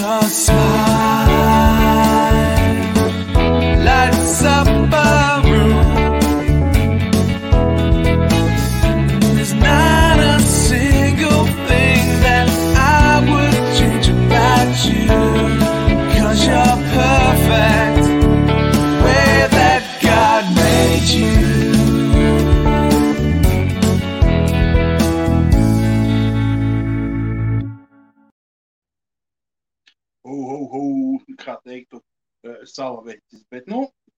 your smile lights up a room. There's not a single thing that I would change about you, 'cause you're perfect the way that God made you. Kā teiktu, salaveķis. Bet,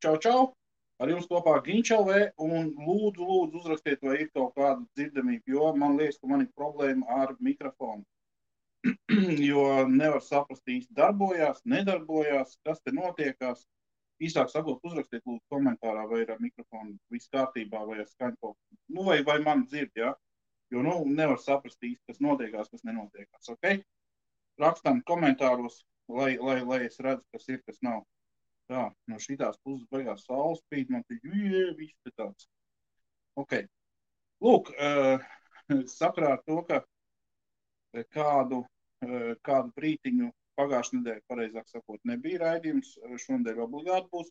čau. Ar jums kopā Ginčalvē un lūdzu uzrakstiet, vai ir kaut kāda dzirdamība, jo man liekas, ka man ir problēma ar mikrofonu. Jo nevar saprast īsti darbojās, nedarbojās, kas te notiekās. Īsāk sakot, uzrakstiet lūdzu komentārā, vai ir ar mikrofonu viss kārtībā, vai ar skaņu, vai man dzird, ja? Jo, nevar saprast īsti, kas notiekās, kas nenotiekās, ok? Rakstam komentāros, lai es redzu, kas ir, kas nav. Tā, no šitās puses beigās saules spīd, man te viss te tāds. Ok. Lūk, sakrā ar to, ka kādu brītiņu pagājušajā nedēļā, pareizāk sakot, nebija raidījums, šonedēļ obligāti būs,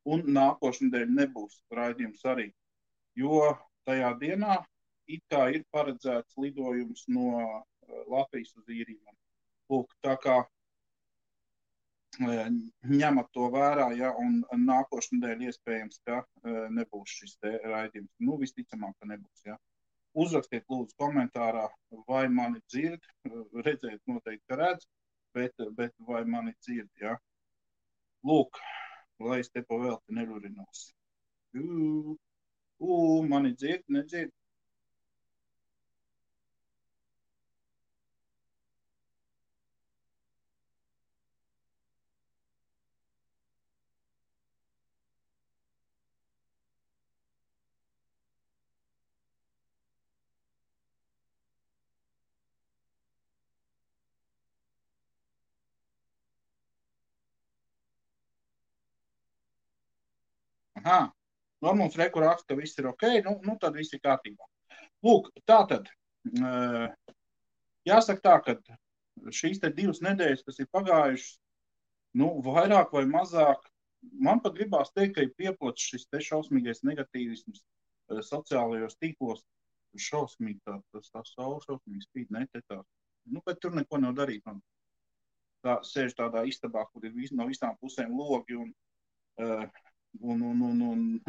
un nākošajā nedēļā nebūs raidījums arī, jo tajā dienā it kā ir paredzēts lidojums no Latvijas uz Īriju. Lūk, tā kā ņemat to vērā, ja, un nākošajā nedēļā iespējams, ka nebūs šis te raidījums. Visticamāk, ka nebūs, ja. Uzrakstiet lūdzu komentārā, vai mani dzird, redzēt noteikti, ka redz, bet vai mani dzird, ja. Lūk, lai es te pa velti nerurinos. Mani dzird, nedzird. Mums reku raksta, ka viss ir ok, tad viss ir kārtībā. Lūk, tātad, jāsaka tā, ka šīs te 2 nedēļas, kas ir pagājušas, vairāk vai mazāk, man pat gribās teikt, ka ir pieplats šis te šausmīgais negatīvisms sociālajos tīklos, šausmīgi tā saule šausmīgi spīd, netētās, bet tur neko nav darīt, man tā sēž tādā istabā, kur ir no visām pusēm logi un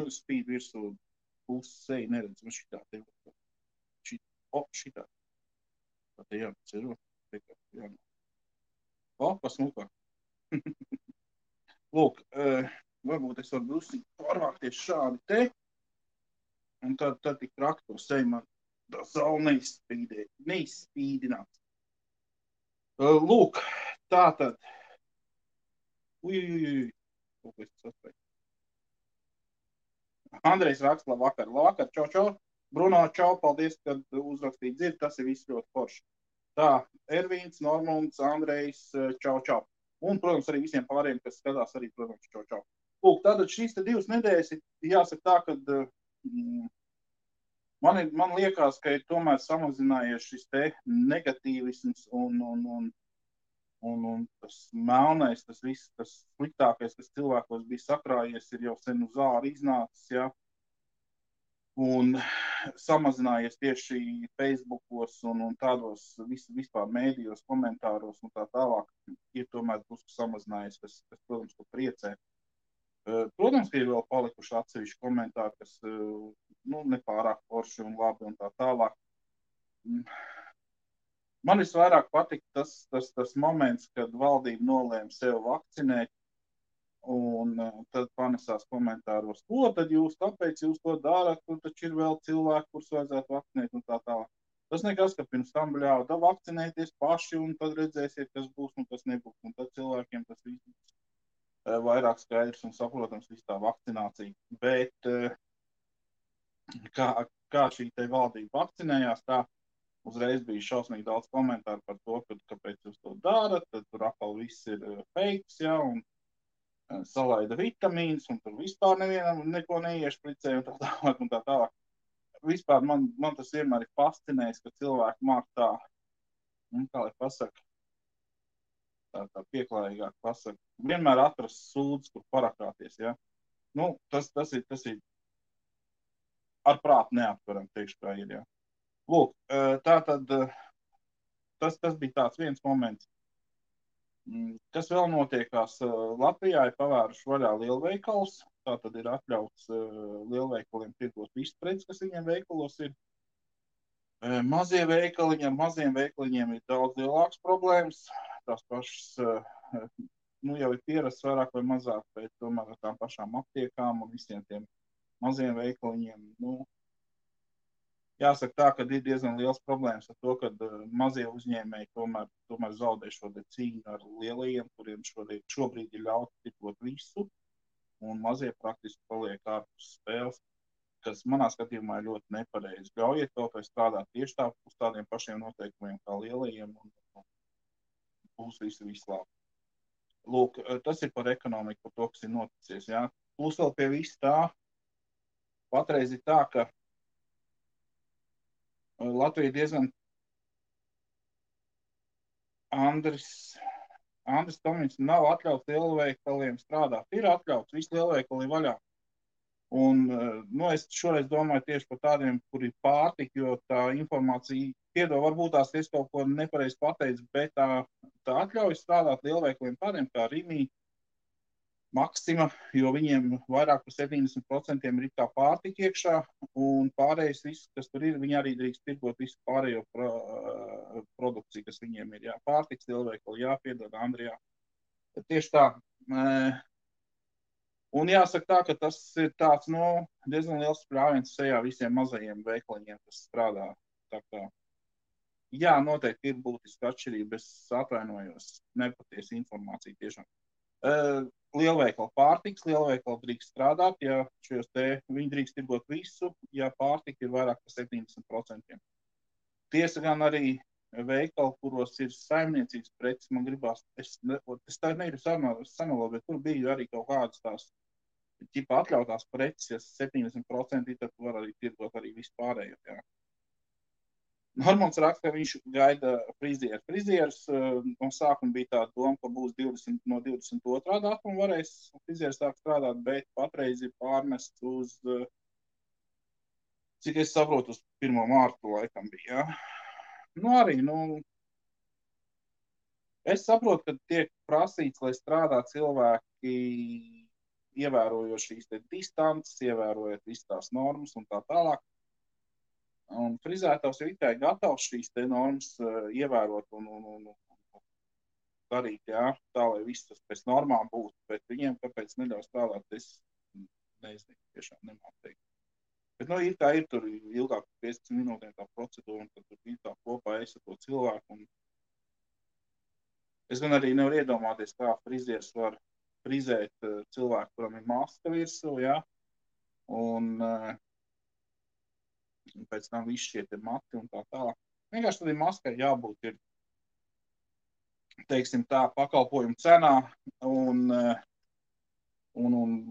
spīd virsū puses seju neredz, šitā te šitā. Tā te jācero. Pasmukā. Lūk, varbūt es varu drusku pārvākties šādi te, un tad tik traki to seju man tā saule neizspīdinās. Lūk, tātad. Kaut ko es saspēju. Andrejs raksta, labvakar, čau. Bruno, čau, paldies, kad uzrakstīji dzird, tas ir viss ļoti forši. Tā, Ervīns, Normunds, Andrejs, čau. Un, protams, arī visiem pārējiem, kas skatās arī, protams, čau. Lūk, tātad šīs te 2 nedēļas ir jāsaka tā, kad man liekas, ka ir tomēr samazinājies šis te negatīvisms un tas melnais, tas viss, tas sliktākais, kas cilvēkos bija sakrājies, ir jau sen uz āru iznācis, ja, un samazinājies tieši Facebookos un tādos vispār mēdījos, komentāros un tā tālāk, ir tomēr drusku samazinājies, kas protams, ko priecē. Protams, ka ir vēl palikuši atsevišķi komentāri, kas, nepārāk forši un labi un tā tālāk. Man visvairāk patika tas moments, kad valdība nolēma sev vakcinēt, un tad panesās komentāros, ko tad kāpēc jūs to darat, tur taču ir vēl cilvēki, kurus vajadzētu vakcinēt un tā tālāk. Tas nekas, ka pirms tam bļauda vakcinēties paši, un tad redzēsiet, kas būs un kas nebūs, un tad cilvēkiem tas viss vairāk skaidrs un saprotams, viss tā vakcinācija. Bet kā šī te valdība vakcinējās, tā uzreiz bija šausmīgi daudz komentāru par to, kāpēc jūs to darat, tad tur atkal viss ir fakes, ja, un salaida vitamīns, un tur vispār nevienam neko neiešpricē, un tā tālāk. Vispār man tas vienmēr ir fascinējis, ka cilvēki māk tā, kā lai pasaka, tā pieklājīgāk pasaka. Vienmēr atrast sūdzes, kur parakrāties, ja. Nu, tas ir ar prātu neaptveram, teikšu, kā ir, ja. Lūk, tātad tas bija tāds viens moments. Kas vēl notiekās? Latvijā ir pavēruši vaļā lielveikals, tātad ir atļauts lielveikaliem tirgot visu preci, kas viņiem veikalos ir. Mazie veikaliņi, ar maziem veikaliņiem ir daudz lielākas problēmas. Tās pašas, jau ir pierasts vairāk vai mazāk, bet tomēr ar tām pašām aptiekām un visiem tiem maziem veikaliņiem. Jāsaka tā, ka ir diezgan liels problēmas ar to, ka mazie uzņēmēji tomēr zaudē šo cīņu ar lielajiem, kuriem šobrīd ir ļauts tirgot visu, un mazie praktiski paliek ārpus spēles, kas manā skatījumā ir ļoti nepareizi. Ļaujiet kaut vai strādāt tieši uz tādiem pašiem noteikumiem kā lielajiem, un būs viss labi. Lūk, tas ir par ekonomiku, par to, kas ir noticies. Jā. Plus vēl pie viss tā, patreiz ir tā, ka Latvija diezgan Andris Tomins nav atļauts lielveikaliem strādāt. Ir atļauts, visi lielveikali vaļā. Un, es šoreiz domāju tieši par tādiem, kuri pārtika, jo tā informācija piedod, varbūt tās es kaut ko nepareizi pateicu, bet tā atļauj strādāt lielveikaliem tādiem kā Rimi, Maxima, jo viņiem vairāk par 70% ir tā pārtika iekšā, un pārējais viss, kas tur ir, viņi arī drīkst tirgot visu pārējo produkciju, kas viņiem ir. Jā, pārtiks lielveikali, jāpiedod, Andrijā. Tieši tā. Un jāsaka tā, ka tas ir tāds, diezgan liels sprāviens sejā visiem mazajiem veikaliņiem, kas strādā. Tā kā, jā, noteikti ir būtiska atšķirība, es atvainojos, nepatiesa informācija tiešām. Lielveikali pārtiks, lielveikali drīkst strādāt, ja viņi drīkst tirgot visu, ja pārtika ir vairāk par 70%. Tiesa gan arī veikali, kuros ir saimniecības preces, man gribās, es tā negribu samelot, bet tur bija arī kaut kādas tās ķipa atļautās preces, ja 70%, tad var arī tirgot arī vispārējo. Jā. Normons raksta, ka viņš gaida frizieris. No sākuma bija tāda doma, ka būs no 22. datuma varēs frizieris sākt strādāt, bet patreiz ir pārmests uz, cik es saprotu, uz 1. mārtu laikam bija. Jā. Arī, es saprotu, ka tiek prasīts, lai strādā cilvēki ievērojoši šīs distances, ievērojot visas tās normas un tā tālāk. Un frizētājs ir tikai gatavs šīs normas ievērot un darīt, jā, tā, lai viss tas pēc normām būtu, bet viņiem kāpēc neļauj strādāt, es nezinu, tiešām nemāku teikt. Bet, ir kā ir tur ilgāk 15 minūtēm tā procedūra, un tad tur ir tā kopā es ar to cilvēku. Un es gan arī nevaru iedomāties, kā frizieris var frizēt cilvēku, kuram ir maska virsū, jā, un pēc tam viss šie mati un tā tālāk. Vienkārši tad maskai jābūt ir, teiksim tā, pakalpojumu cenā un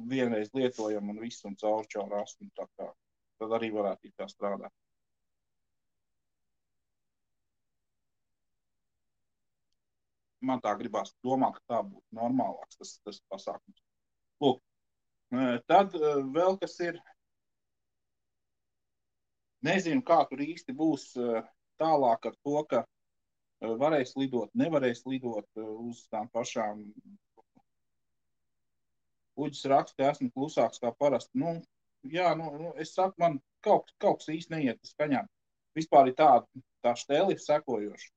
vienreiz lietojam un viss un caur astu un tā kā. Tad arī varētu tā strādāt. Man tā gribās domāt, ka tā būtu normālāks tas pasākums. Lūk, tad vēl kas ir, nezinu, kā tur īsti būs tālāk ar to, ka varēs lidot, nevarēs lidot uz tām pašām. Uģis raksta, esmu klusāks kā parasti. Es saku, man kaut kas īsti neiet skaņā. Vispār ir tā štēli ir sekojoša.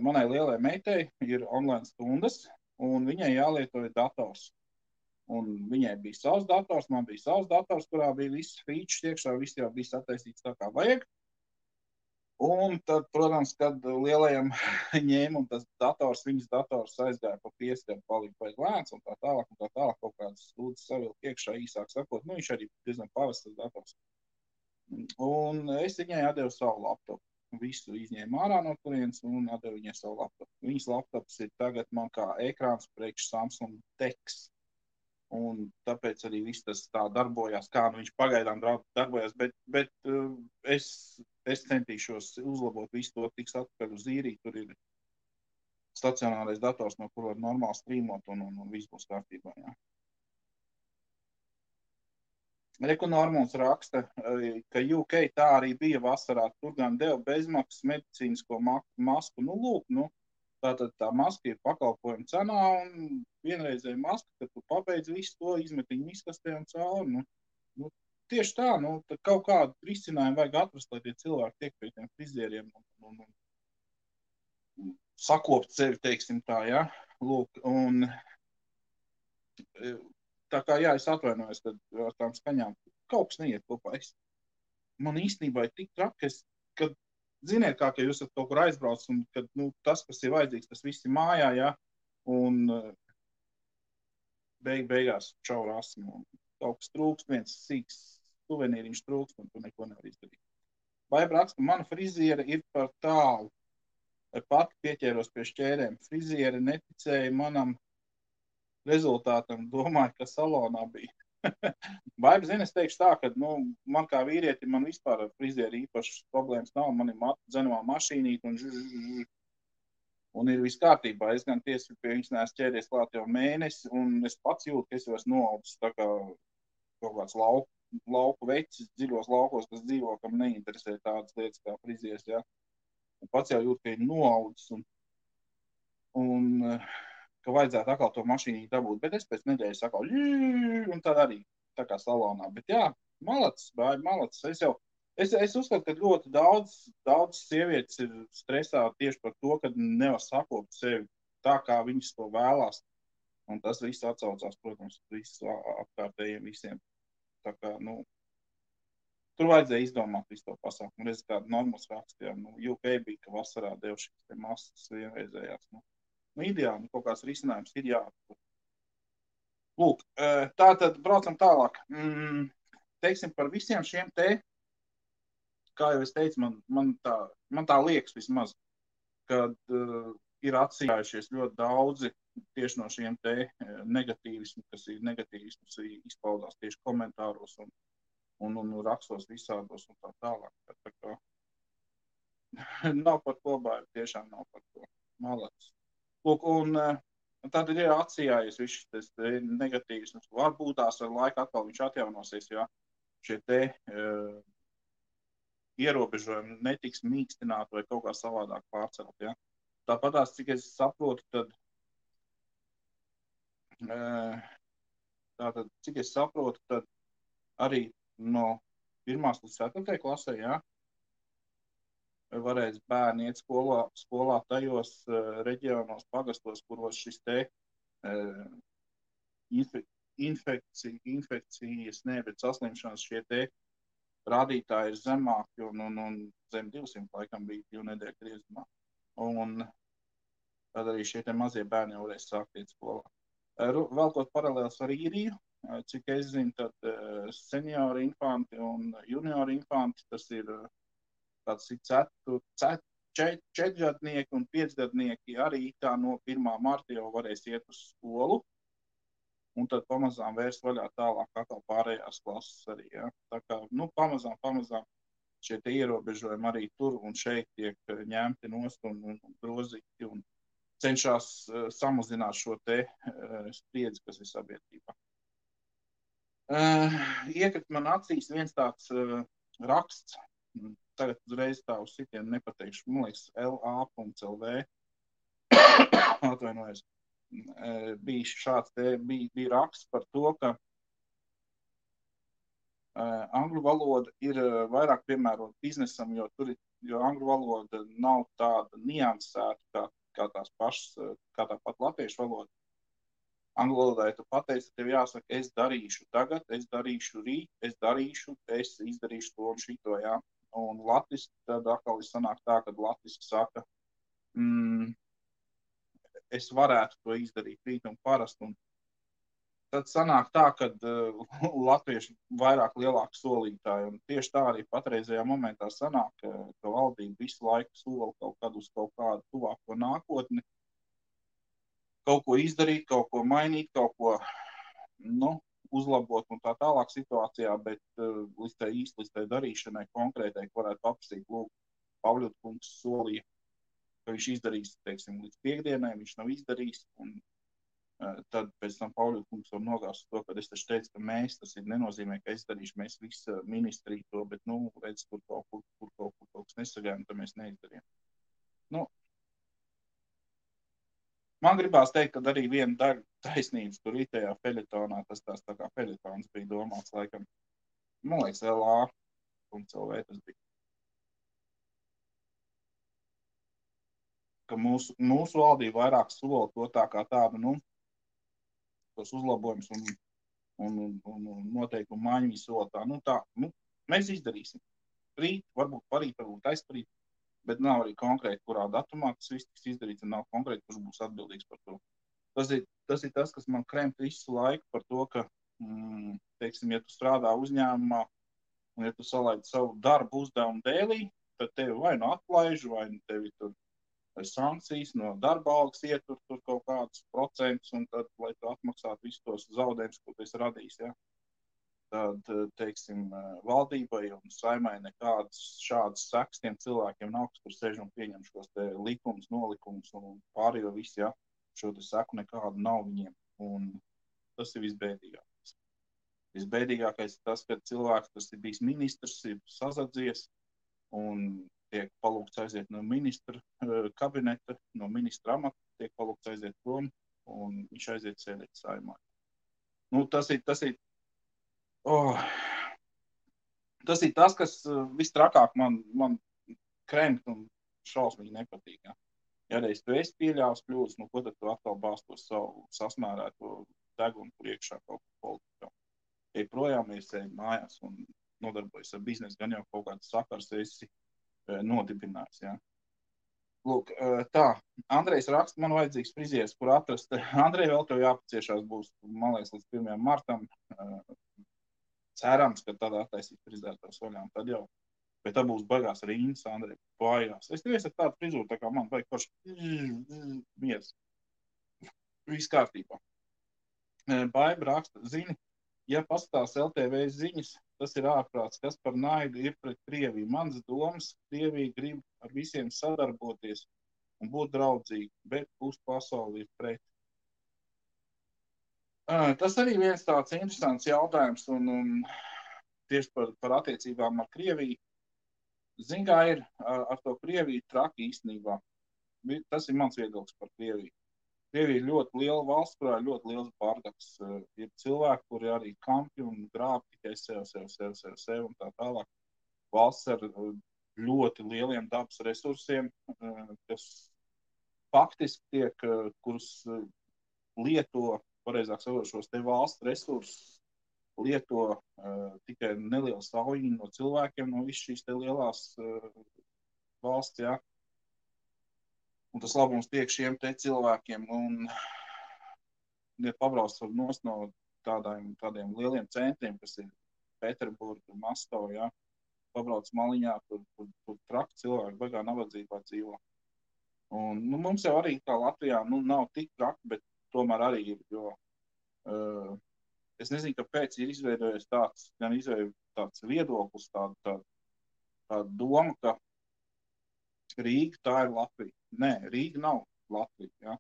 Manai lielai meitai ir online stundas, un viņai jālieto dators. Un viņai bija savs dators, man bija savs dators, kurā bija viss features iekšā, viss jau bija sataisīts tā kā vajag. Un tad, protams, kad lielajam ņēma un tas viņas dators aizgāja pa pieskaru, palika vajag lēns un tā tālāk, kaut kādas stūdas savilk iekšā īsāk sakot. Viņš arī diezgan pavests tas dators. Un es viņai atdevu savu laptopu. Visu izņēmu ārā no turienes un atdevu viņai savu laptopu. Viņas laptops ir tagad man kā ekrāns priekš Samsung Tex. Un tāpēc arī viss tas tā darbojās, kā viņš pagaidām darbojās, bet es centīšos uzlabot visu to, tiks atpakaļ uz īriju, tur ir stacionārais dators, no kur var normāli strīmot un viss būs kārtībā, jā. Reku Normons raksta, ka UK tā arī bija vasarā, tur gan deva bezmaksas medicīnisko masku. Nu, lūk, tātad tā maska ir pakalpojuma cenā un vienreizēja maska, kad tu pabeidz visu to, izmet viņu miskastē un cauri. Tieši tā, tad kaut kādu risinājumu vajag atrast, lai tie cilvēki tiek pie tiem frizieriem un sakopt sevi, teiksim tā, ja? Lūk, un tā kā, jā, es atvainojos, kad ar tām skaņām kaut kas neiet kopā. Man īstenībā ir tik traki, kad ziniet kā, ka jūs esat kaut kur aizbrauc un kad, tas, kas ir vajadzīgs, tas viss ir mājā, ja? Un beigās čau rasmu. Kaut kas trūkst, viens sīks suvenīriņš trūkst, un tu neko nevar izdarīt. Baiba raksta, mana friziera ir par tālu. Pati pieķēros pie šķērēm. Friziera neticēja manam rezultātam, domāju, ka salonā bija. Baiba, zini, es teikšu tā, ka, man kā vīrieti, man vispār ar frizieri īpašas problēmas nav. Man ir dzenovā mašīnīt un ir viss kārtībā. Es gan tiesi pie viņas neesmu ķēries klāt jau mēnesi, un es pats jūtu, ka es jau esmu noaudzis tā kā kaut kāds lauku vecis, dziļos laukos, kas dzīvo, kam neinteresē tādas lietas kā frizieris, ja. Un pats jau jūt, ka ir noaudzis un ka vajadzētu atkal to mašīnu dabūt, bet es pēc nedēļas atkal un tad arī tā kā salonā. Bet jā, malacis, es uzskatu, ka ļoti daudz sievietes ir stresā tieši par to, ka nevar sakopt sevi tā, kā viņas to vēlās. Un tas viss atsaucās, protams, visu apkārtējiem visiem. Tā kā, tur vajadzēja izdomāt visu to pasākumu. Reiz kādu Normos rakstījā, UK bija, ka vasarā deva šīs masas vienreizējās. Ideāli, kaut kāds risinājums ir jāatpūt. Lūk, tātad braucam tālāk. Teiksim, par visiem šiem te, kā jau es teicu, man tā liekas vismaz, kad ir atsījājušies ļoti daudzi tieši no šiem te negatīvismu, kas ir negatīvismus izpaudās tieši komentāros un rakstos visādos un tā tālāk. Tā kā nav par ko baidu, tiešām nav par ko. Malacis. Lūk, un tad ir atsījājies viss šis negatīvisms. Varbūt tās ar laiku atkal viņš atjaunosies, ja šie te ierobežojumi netiks mīkstināti vai kaut kā savādāk pārcelt, ja. Tāpatās, cik es saprotu, tad arī no 1. līdz 4. klasē, ja, varēs bērni iet skolā tajos reģionos, pagastos, kuros šis te saslimšanas šie te rādītāji ir zemāki un zem 200 laikam bija 2 nedēļu griezumā. Un tad arī šie te mazie bērni jau varēs sākt iet skolā. Velkot paralēls ar īriju, cik es zinu, tad seniori infanti un juniori infanti, tas ir tāds 4-gadnieki un 5-gadnieki arī tā no 1. marta jau varēs iet uz skolu. Un tad pamazām vērs vaļā tālāk atkal pārējās klases arī, ja. Tā kā, pamazām šie te ierobežojumi arī tur un šeit tiek ņemti nost un grozīti un cenšas samazināt šo te spriedzi, kas ir sabiedrībā. Iekrīt man acīs viens tāds raksts, tagad uzreiz tā uz sitienu nepateikšu, man liekas, LA.LV, atvainojos, bija šāds te, bija raksts par to, ka angļu valoda ir vairāk piemērota biznesam, jo angļu valoda nav tāda niansēta, kā tā pat latviešu valoda. Angļu valodā, ja tu pateici, tev jāsaka, es darīšu tagad, es darīšu rīt, es izdarīšu to un šito, jā. Un latviski tad atkal sanāk tā, kad latviski saka, es varētu to izdarīt rīt un parasti. Un tad sanāk tā, kad latvieši vairāk lielāku solītāji. Un tieši tā arī patreizajā momentā sanāk, ka valdība visu laiku sola kaut kādu uz kaut kādu tuvāko nākotni. Kaut ko izdarīt, kaut ko mainīt, kaut ko uzlabot un tā tālāk situācijā, bet līdz tai darīšanai konkrētai, ko varētu paprasīt, lūk, Pavļot kungs solīja ka viņš izdarīs, teiksim, līdz piekdienai, viņš nav izdarījis, un tad pēc tam Pauļu kungs var nogāzt to, kad es taču teicu, ka mēs, tas ir nenozīmē, ka es darīšu, mēs visi ministriju to, bet, redz, kur kaut kas nesagājām, tad mēs neizdarījām. Man gribās teikt, ka arī viena daļa taisnības tur itējā feļetonā, tas tās tā kā feļetons bija domāts, laikam, man liekas, LA un CLV tas bija. Ka mūsu valdība vairāk sola to tā kā tādu, tos uzlabojumus un noteikumu maiņu sola tā, mēs izdarīsim. Rīt, varbūt aizparīt, bet nav arī konkrēti, kurā datumā tas viss tiks izdarīts, un nav konkrēti, kurš būs atbildīgs par to. Tas ir tas, kas man kremp visu laiku par to, ka, teiksim, ja tu strādā uzņēmumā, un ja tu salaidi savu darbu uzdevumu dēlī, tad tevi vai nu atlaiž, vai nu tevi tur sankcijas no darba algas ietur tur kaut kādus procentus, un tad, lai tu atmaksātu visus tos zaudējumus, ko tu esi radījis, ja? Tad, teiksim, valdībai un saimai nekādas šādas sekas tiem cilvēkiem nav, kas tur sēž un pieņem šos te likumus, nolikumus un pārējo visu, ja, šo te seku nekādu nav viņiem. Un tas ir visbēdīgākais. Visbēdīgākais ir tas, ka cilvēks, kas ir bijis ministrs, ir sazadzies un tiek palūgts aiziet no ministra kabineta, no ministra amata, tiek palūgts aiziet prom un viņš aiziet sēdēt saimā. Tas ir tas, kas vistrakāk man krempt un šausmīgi nepatīk. Ja, ja reiz tu esi pieļāvis kļūdas, ko tad tu atkal bāz to savu sasmērēto degunu priekšā kaut ko politikā. Ej projām, ej mājās un nodarbojas ar biznesu, gan jau kaut kāds sakars esi nodibinājis. Ja. Lūk, tā, Andrejs raksta, man vajadzīgs frizieris, kur atrast. Andrej, vēl tev jāpaciešās būs, man liekas, līdz 1. martam. Cerams, ka tad attaisīt frizētās vaļām, tad jau. Bet tā būs baigās rindas, Andrej, bājās. Es tev ar tādu frizūru, tā kā man vajag paši miers. Viss kārtībā. Baiba raksta, zini, ja paskatās LTV ziņas, tas ir ārprāts, kas par naidu ir pret Krieviju. Mans domas, Krievija grib ar visiem sadarboties un būt draudzīgi, bet pasauli ir pret. Tas arī viens tāds interesants jautājums un tieši par attiecībām ar Krieviju. Zin, kā ir ar to Krieviju traki īstenībā. Tas ir mans viedoklis par Krieviju. Krievija ir ļoti liela valsts, kurā ir ļoti liels bardaks. Ir cilvēki, kuri arī kampi un grāb tikai sev un tā tālāk. Valsts ar ļoti lieliem dabas resursiem, kas faktiski tiek, kurus lieto, pareizāk sakot, šos te valsts resursus lieto tikai neliela saujiņa no cilvēkiem, no visas šīs te lielās valsts, jā. Un tas labums tiek šiem te cilvēkiem, un ja pabrauc no tādiem lieliem centriem, kas ir Pēterburga, Maskava, jā, pabrauc maliņā, tur traki cilvēki, baigā nabadzībā dzīvo. Un, mums jau arī kā Latvijā, nav tik traki, bet tomēr arī ir, jo es nezinu, kāpēc ir izveidojies tāds viedoklis, tāda doma, ka Rīga tā ir Latvija. Nē, Rīga nav Latvija. Ja?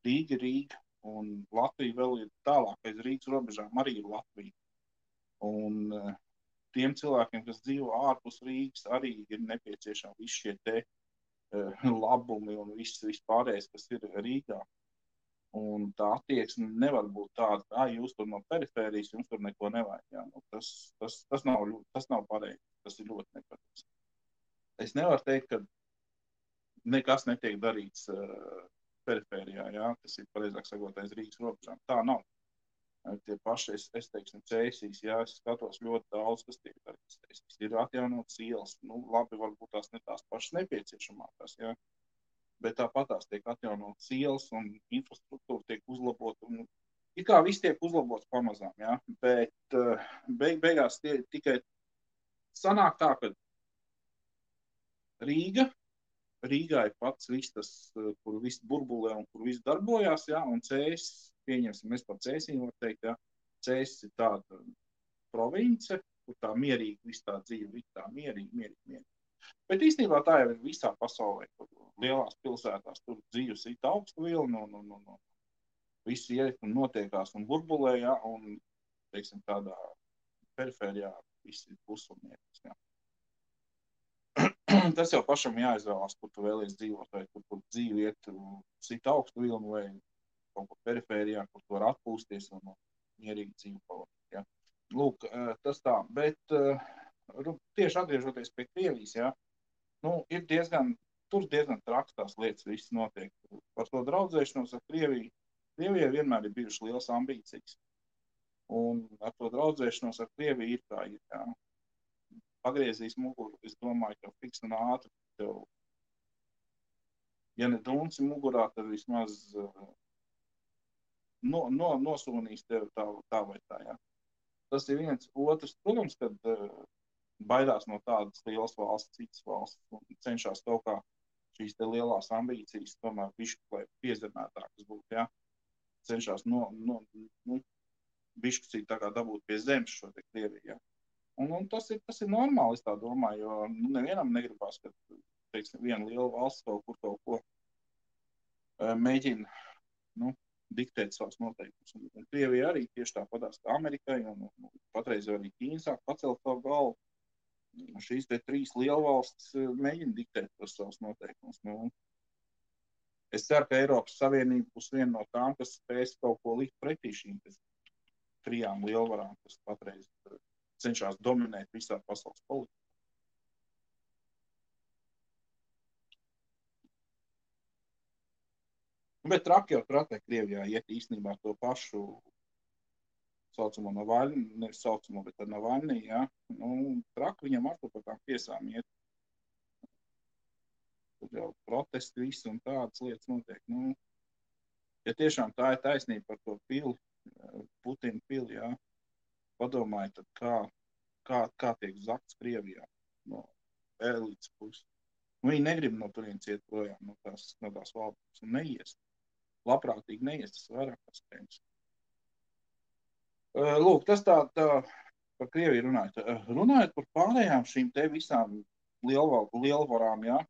Rīga ir Rīga, un Latvija vēl ir tālāk aiz Rīgas robežām arī ir Latvija. Un tiem cilvēkiem, kas dzīvo ārpus Rīgas, arī ir nepieciešami visi šie te labumi un viss pārējais, kas ir Rīgā. Un tā attieksme nevar būt tāda, ka jūs tur no perifērijas, jums tur neko nevajag. Ja? Tas nav pareizi, tas ir ļoti nepareizi. Es nevaru teikt, ka nekas netiek darīts perifērijā, ja? Tas ir pareizāk sakot aiz Rīgas robežām. Tā nav. Tie paši, es teiksim, Cēsīs, ja es skatos ļoti daudz, kas tiek darīts Cēsīs. Ir atjaunotas ielas, labi, varbūt tās ne tās pašas nepieciešamākās, ja? Bet tāpat tās tiek atjaunotas ielas un infrastruktūra tiek uzlabota. Ir kā viss tiek uzlabots pamazām, ja? Bet beigās tikai sanāk tā, ka Rīgā ir pats viss tas, kur viss burbulē un kur viss darbojās, ja? Un Cēsis, pieņemsim, mēs par Cēsīm var teikt, ja? Cēsis ir tāda province, kur tā mierīgi viss tā dzīve, viss tā mierīgi. Bet īstenībā tā jau ir visā pasaulē, kur lielās pilsētās tur dzīves ir augsta vilna un viss iet un notiekās un burbulē, ja, un, teiksim, tādā perifērijā viss ir pusumniekas, ja. Tas jau pašam jāizvēlās, kur tu vēlies dzīvot, vai kur dzīvi iet sit augstu vilnu, vai kaut kur perifērijā, kur tu var atpūsties un mierīgi dzīvi pavadīt, ja. Lūk, tas tā, bet tieši atgriežoties pie Krievijas, ja, ir tur diezgan traks tās lietas viss notiek. Par to draudzēšanos ar Krieviju. Krievijai vienmēr ir bijušas lielas ambīcijas. Un ar to draudzēšanos ar Krieviju ir tā, ja. Pagriezīs muguru, es domāju, ka fiks un ātri tev, ja ne dunci mugurā, tad vismaz nosūnīs tev tā vai tā, ja. Tas ir viens. Otrs, protams, kad baidās no tādas lielas valsts, citas valsts, un cenšas kaut kā šīs te lielās ambīcijas, tomēr bišķi, lai piezemētākas būtu, ja. Cenšas bišķi tā kā dabūt pie zemes šo te Krieviju, ja. Un tas ir normāli, es tā domāju, jo nevienam negribās, ka, teiksim, viena liela valsts kaut ko mēģina, diktēt savus noteikumus. Un Krievija arī tieši tāpatās kā Amerikai, un patreiz arī Ķīna sāk pacelt savu galvu. Šīs te 3 lielvalstis mēģina diktēt tos savus noteikumus. Es ceru, ka Eiropas Savienība būs viena no tām, kas spēs kaut ko likt pretī šīm 3 lielvarām, kas patreiz cenšas dominēt visā pasaules politikā. Bet traki jau tratē Krievijā iet īstenībā to pašu saucamo Navaļni, nevis saucamo, bet ar Navaļni, ja. Traki viņam ar to par tām tiesām iet. Tad jau protesti visi un tādas lietas notiek. Ja tiešām tā ir taisnība par to pili, Putina pili, ja, padomājiet, tad kā tiek zakts Krievijā no elites puses. Viņi negrib no turienes iet projām, no tās valdības, un neies. Labprātīgi neies, tas vairāk paspējums. Lūk, tas tā par Krieviju runājot. Runājot par pārējām šīm te visām lielvarām, jā.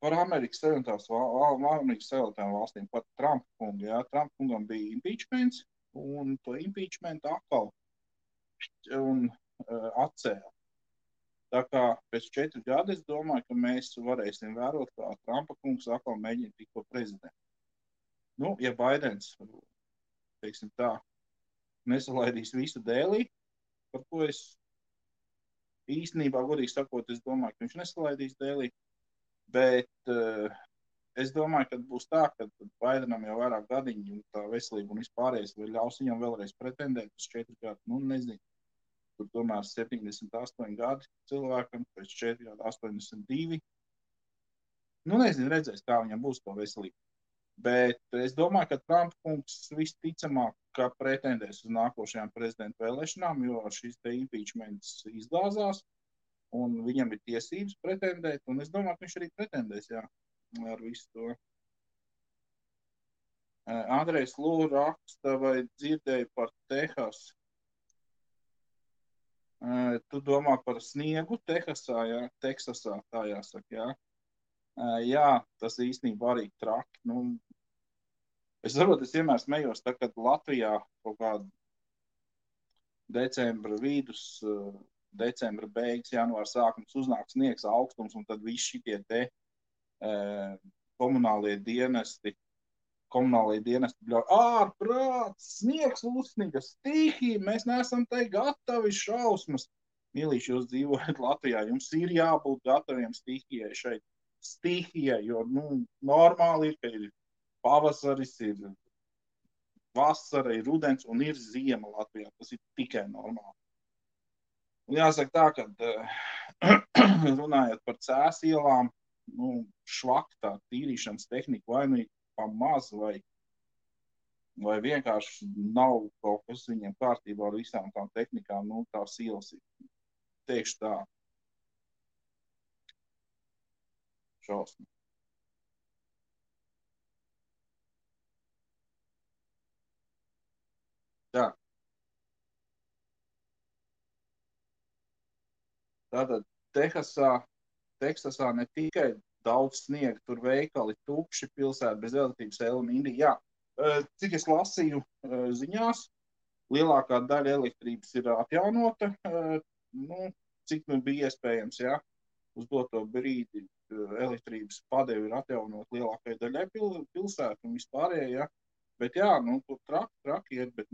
Par Amerikas Savienotajām valstīm, par Trumpa kungu, jā. Trumpa kungam bija impeachments, un to impeachment atkal atcēla. Tā kā pēc 4 gadu es domāju, ka mēs varēsim vērot, kā Trumpa kungs atkal mēģina tikt par prezidentu. Ja Baidens, teiksim tā, nesalaidīs visu dēlī, par ko es īstenībā, godīgi sakot, es domāju, ka viņš nesalaidīs dēlī, bet es domāju, ka būs tā, ka Baidenam jau vairāk gadiņi un tā veselība un vispārējais, vai ļaus viņam vēlreiz pretendēt uz 4 gadu, nezinu. Tur tomēr 78 gadi cilvēkam, pēc 4 gadu 82. Nezinu, redzēs, kā viņam būs to veselību. Bet es domāju, ka Trumpa kungs visticamāk, ka pretendēs uz nākošajām prezidenta vēlēšanām, jo šis te impeachments izgāzās, un viņam ir tiesības pretendēt, un es domāju, ka viņš arī pretendēs, jā, ar visu to. Andrejs Lū raksta, vai dzirdēja par Tehasu. Tu domā par sniegu Tehasā, jā, Teksasā, tā jāsaka, jā. Jā, tas īstenībā arī traki. Es vienmēr smējos, tā, kad Latvijā kaut kādu decembra vidus, decembra beigas, janvāra sākums uznāk sniegs augstums, un tad visi šitie te komunālie dienesti bļauj, ārprāts, sniegs uzsniga, stihija, mēs neesam te gatavi, šausmas. Mīlīši, jūs dzīvojat Latvijā, jums ir jābūt gataviem stihijai šeit. Stihijai, jo, normāli ir, ka ir pavasaris, ir vasara, ir rudens un ir ziema Latvijā. Tas ir tikai normāli. Un jāsaka tā, ka runājot par Cēs ielām, švaktā tīrīšanas tehnika vai pamaz, vai vienkārši nav kaut kas viņiem kārtībā ar visām tām tehnikām, tās ielas ir, teikšu tā, šausmi. Tā. Tātad Teksasā ne tikai daudz sniega, tur veikali tukši, pilsēta bez elektrības, Elmīri. Jā, cik es lasīju ziņās, lielākā daļa elektrības ir atjaunota, cik nu bija iespējams, jā, uz doto brīdi elektrības padevi ir atjaunot lielākai daļai pilsētu un vispārējai, jā. Bet jā, tur traki iet, bet,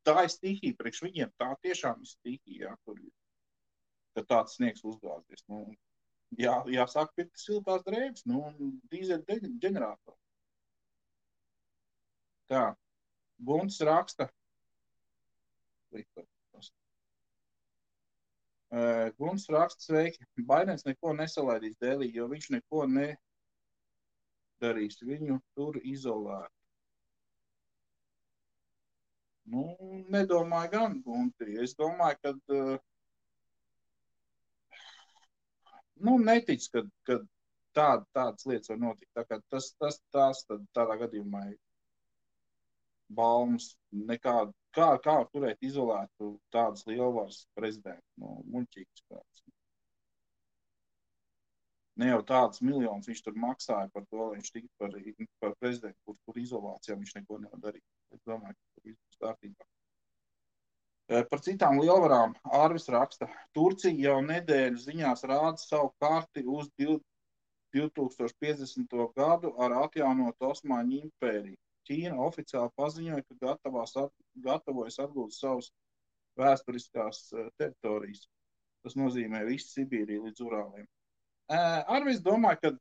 tā ir stihija priekš viņiem, tā tiešām ir stihija, jā, tur ir, ka tāds sniegs uzgāzies, jāsāk pirkt siltās drēbes, dīzeļu ģeneratoru. Tā, Gunts raksta. Gunts raksta, sveiki. Baidens neko nesalaidīs Delī, jo viņš neko nedarīs. Viņu tur izolēt. Nedomāju gan, Gunti. Es domāju, ka netic, ka tādas lietas var notikt. Tā kā tas tādā gadījumā ir baumas nekādu. Kā var turēt izolētu tādas lielvaras prezidentu? Muļķīgs kāds. Ne jau tādas miljonus viņš tur maksāja par to, lai viņš tiktu par prezidentu, kur izolācijā viņš neko nevar darīt. Es domāju, ka tur viss būs kārtībā. Par citām lielvarām Ārvis raksta, Turcija jau nedēļu ziņās rāda savu karti uz 2050. gadu ar atjaunotu Osmaņu impēriju. Ķīna oficiāli paziņoja, ka gatavojas atgūt savas vēsturiskās teritorijas. Tas nozīmē visu Sibīriju līdz Urāliem. Ārvis domāju, ka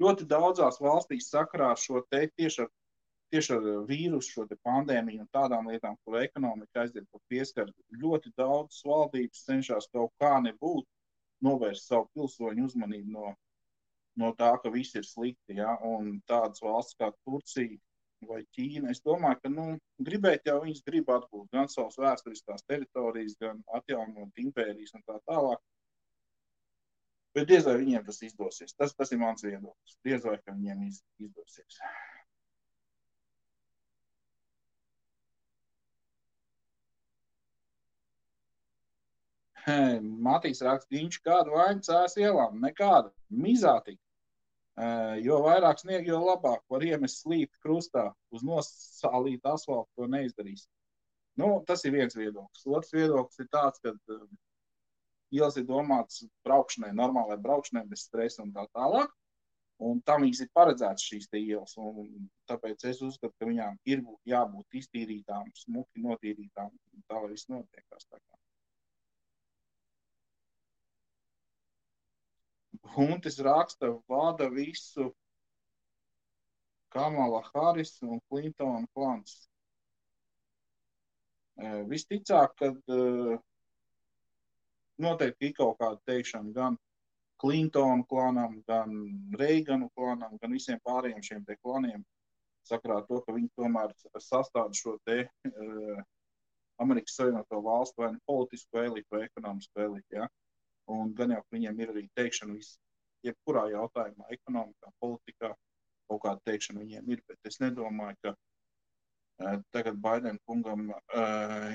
ļoti daudzās valstīs sakarā ar šo tieši ar vīrusu, šo pandēmiju un tādām lietām, kur ekonomika aiziet pa pieskaru, ļoti daudzas valdības cenšas kaut kā nebūt novērst savu pilsoņu uzmanību no tā, ka viss ir slikti, ja? Un tādas valsts kā Turcija vai Ķīna, es domāju, ka gribēt jau viņas grib atgūt gan savas vēsturiskās teritorijas, gan atjaunot impērijas un tā tālāk. Bet diez vai viņiem tas izdosies. Tas ir mans viedoklis. Diez vai, ka viņiem izdosies. Matīs raksta, viņš kādu vainu cēs ielām, nekāda, mizātīgi. Jo vairāk snieg, jo labāk var iemest slīpi krustā, uz nosālītu asfaltu to neizdarīs. Tas ir viens viedoklis. Otrs viedoklis ir tāds, ka ielas ir domātas braukšanai, normālai braukšanai, bez stresa un tā tālāk. Un tam viņas ir paredzētas šīs te ielas. Un tāpēc es uzskatu, ka viņām ir jābūt iztīrītām, smuki notīrītām. Tā lai viss notiekās tā kā. Huntis raksta, vada visu Kamala Harris un Clintona klans. Visticāk, kad noteikti ir kaut kāda teikšana gan Clintona klanam, gan Reiganu klanam, gan visiem pārējiem šiem te klaniem, sakarā to, ka viņi tomēr sastāda šo te Amerikas Savienoto valstu vai politisko elitu vai ekonomisko elitu, ja? Un gan jau viņiem ir arī teikšana jebkurā jautājumā, ekonomikā, politikā, kaut kāda teikšana viņiem ir, bet es nedomāju, ka tagad Baidena kungam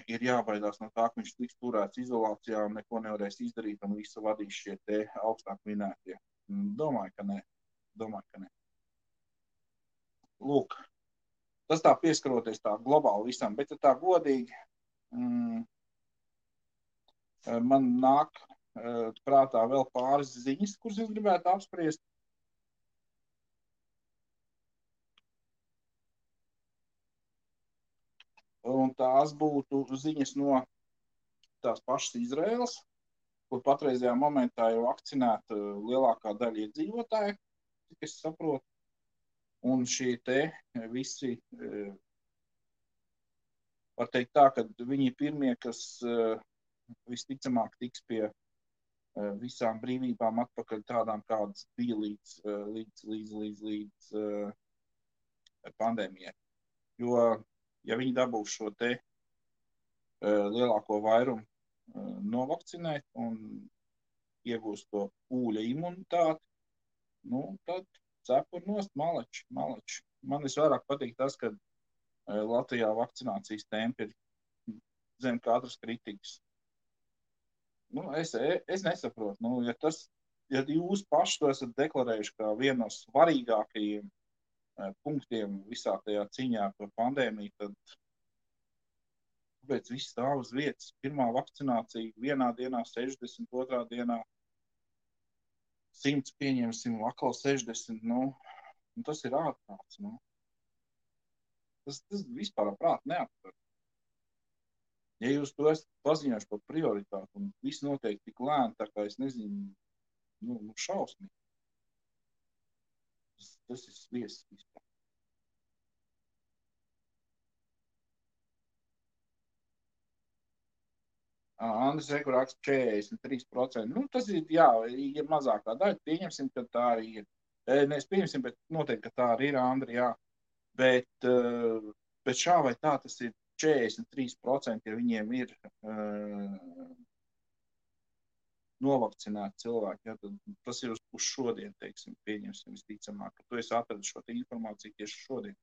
ir jābaidās no tā, ka viņš tiks turēts izolācijā un neko nevarēs izdarīt un visu vadīs šie te augstāk minētie. Domāju, ka ne. Lūk, tas tā pieskaroties tā globāli visam, bet tā godīgi man nāk prātā vēl pāris ziņas, kuras es gribētu apspriest. Un tās būtu ziņas no tās pašas Izraēlas, kur patreizajā momentā jau vakcinēta lielākā daļa iedzīvotāju, cik es saprotu. Un šie te visi, var teikt tā, ka viņi ir pirmie, kas visticamāk tiks pie visām brīvībām atpakaļ tādām, kādas bija līdz pandēmijai. Jo, ja viņi dabūs šo te lielāko vairumu novakcinēt un iegūst to pūļa imunitāti, tad cepur nost maleči. Man visvairāk patīk tas, ka Latvijā vakcinācijas tempi ir zem katras kritikas. Es nesaprotu, ja tas ja jūs paši to esat deklarējuši kā vienu no svarīgākajiem punktiem visā tajā cīņā par pandēmiju, tad kāpēc viss stāv uz vietas? Pirmā vakcinācija vienā dienā 60, otrā dienā 100 pieņemsim, atkal 60, nu, tas ir ārprāts, nu. Tas vispār prāt neaptver. Ja jūs to esat paziņojuši par prioritāti un viss notiek tik lēni, tā kā es nezinu, nu šausmīgi. Tas ir sviests vispār. Andris Reku raksta 43%. Nu, tas ir, jā, ja mazākā daļa, pieņemsim, ka tā arī ir. Mēs pieņemsim, bet noteikti, ka tā arī ir, Andri, jā. Bet šā vai tā tas ir 43%, ja viņiem ir novakcinēti cilvēki. Ja, tad tas ir uz šodien, teiksim, pieņemsim visticamāk, ka tu esi atradis šo informāciju tieši šodien.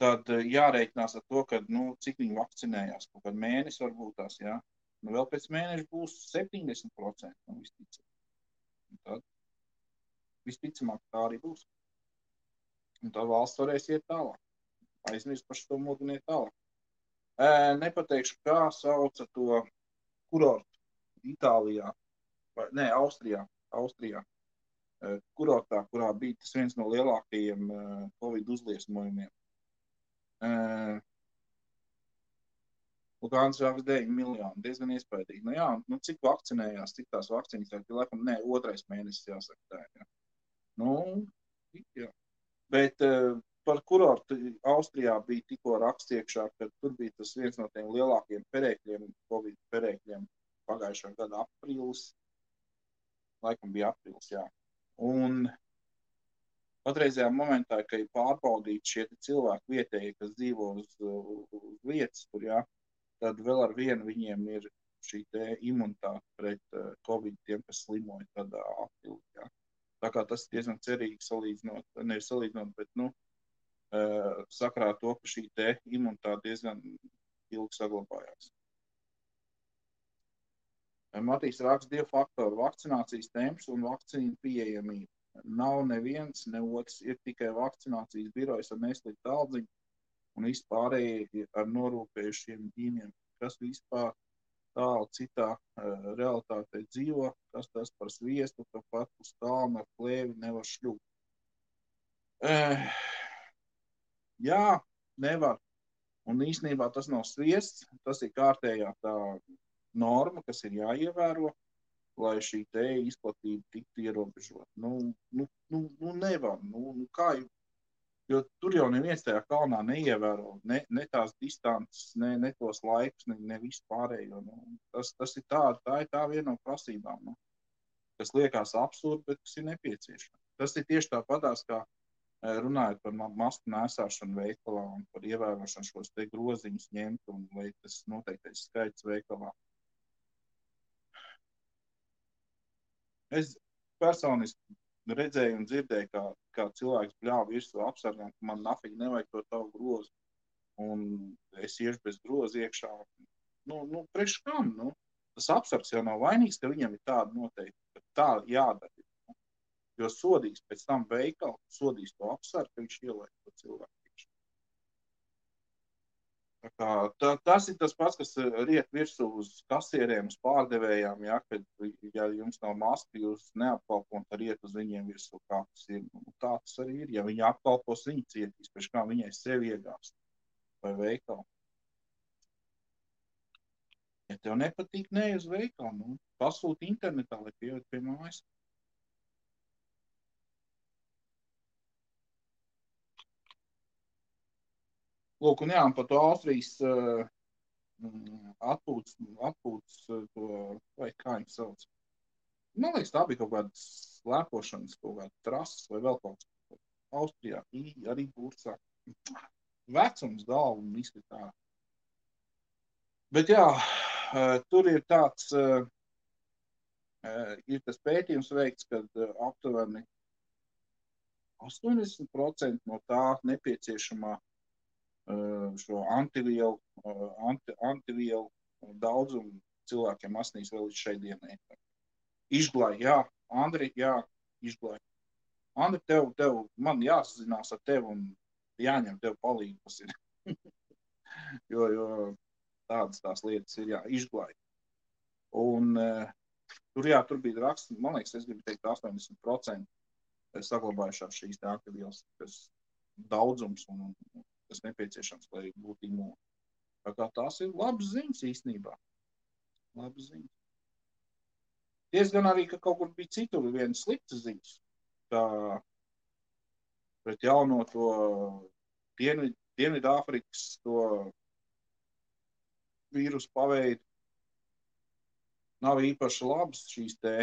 Tad jārēķinās ar to, ka, nu, cik viņi vakcinējās, kaut kādu mēnesi varbūt tās, jā. Nu, vēl pēc mēneša būs 70%, nu, visticamāk. Un tad visticamāk tā arī būs. Un tad valsts varēs iet tālāk. Aizmirst par šo moduli iet tālāk. Nepateikšu, kā sauca to kurortu Itālijā, vai, ne, Austrijā. Kurortā, kurā bija tas viens no lielākajiem Covid uzliesmojumiem. Lukāns vēl 9 miljoni, diezgan iespaidīgi. Nu jā, nu cik vakcinējās, cik tās vakcīnas, laikam, ne, 2. mēnesis jāsaka tā, jā. Nu, jā. Bet par kurortu Austrijā bija tikko raksts iekšā, ka tur bija tas viens no tiem lielākiem perēkļiem, Covid perēkļiem pagājušā gada aprīlis. Laikam bija aprīlis, jā. Un patreizajā momentā, ka ir pārbaudīti šie cilvēki vietēji, kas dzīvo uz vietas, tur, jā, tad vēl ar vienu viņiem ir šī te imunitāte pret Covid tiem, kas slimoja tādā apilī, jā. Tā kā tas diezgan cerīgi salīdzinot, nevis salīdzinot, bet, nu, sakarā to, ka šī te imunitāte diezgan ilgi saglabājās. Matīs raksta 2 faktori - vakcinācijas temps un vakcīnu pieejamība. Nav neviens, ne otrs, ir tikai vakcinācijas birojas ar nesliku taldziņu un vispārējie ar norūpējušiem ģīmiem, kas vispār tālu citā realitātē dzīvo, kas tas par sviestu, ka pat uz kalnu ar plēvi nevar šļūt. Jā, nevar. Un īstenībā tas nav sviests, tas ir kārtējā tā norma, kas ir jāievēro, lai šī te izplatība tiktu ierobežot. Nu, nevar. Nu, kā jau, jo tur jau neviens tajā kalnā neievēro ne tās distances, ne tos laikus, ne visu pārējo. Nu, tas ir tā ir tā viena no prasībām, nu, kas liekas absurdi, bet kas ir nepieciešama. Tas ir tieši tāpatās, kā runājot par masku nēsāšanu veikalā un par ievērošanu šos te groziņus ņemt un vai tas noteiktais skaits veikalā. Es personiski redzēju un dzirdēju, kā cilvēks bļāva virsū apsargām, ka man nafīgi nevajag to tavu grozu. Un es iešu bez groza iekšā. Nu, priekš kam? Nu? Tas apsargs jau nav vainīgs, ka viņam ir tāda noteikti, ka tā jādara. Jo sodīs pēc tam veikalu, sodīs to apsargu, ka viņš ielaik to cilvēku. Tas ir tas pats, kas riet virsū uz kasieriem, uz pārdevējām, ja, kad, ja jums nav maska, jūs neapkalpot, tad riet uz viņiem virsū, kā tas ir. Tā tas arī ir. Ja viņi apkalpos, viņi cietīs, pēc kā viņai sevi iegāst vai veikalu. Ja tev nepatīk, ne uz veikalu, nu, pasūti internetā, lai pieviet pie mājas. Lūk, un jā, par to Austrijas atpūtas to, vai kā viņi sauc. Man liekas, tā bija kaut kāda slēpošanas, kaut kāda trases vai vēl kaut kas. Austrijā arī bursā. Vecums galvu un izskatā. Bet jā, tur ir tāds, ir tas pētījums veikts, kad aptuveni 80% no tā nepieciešamā šo antivielu daudzumu cilvēkiem asnīs vēl līdz šai dienai. Izglāja, jā, Andri, jā, izglāj. Andri, man jāsazinās ar tevi un jāņem tev palīgi, kas ir. jo tādas tās lietas ir izglāj. Un tur bija raksts, man liekas, es gribu teikt 80% saglabājušās šīs ākavielas, kas daudzums un kas nepieciešams, lai būtu imūni. Tā kā tās ir labas ziņas īstenībā. Labas ziņas. Diezgan arī, ka kaut kur bija citur vienas sliktas ziņas. Tā pret jauno to Dienvidāfrikas to vīrusu paveidu nav īpaši labas šīs te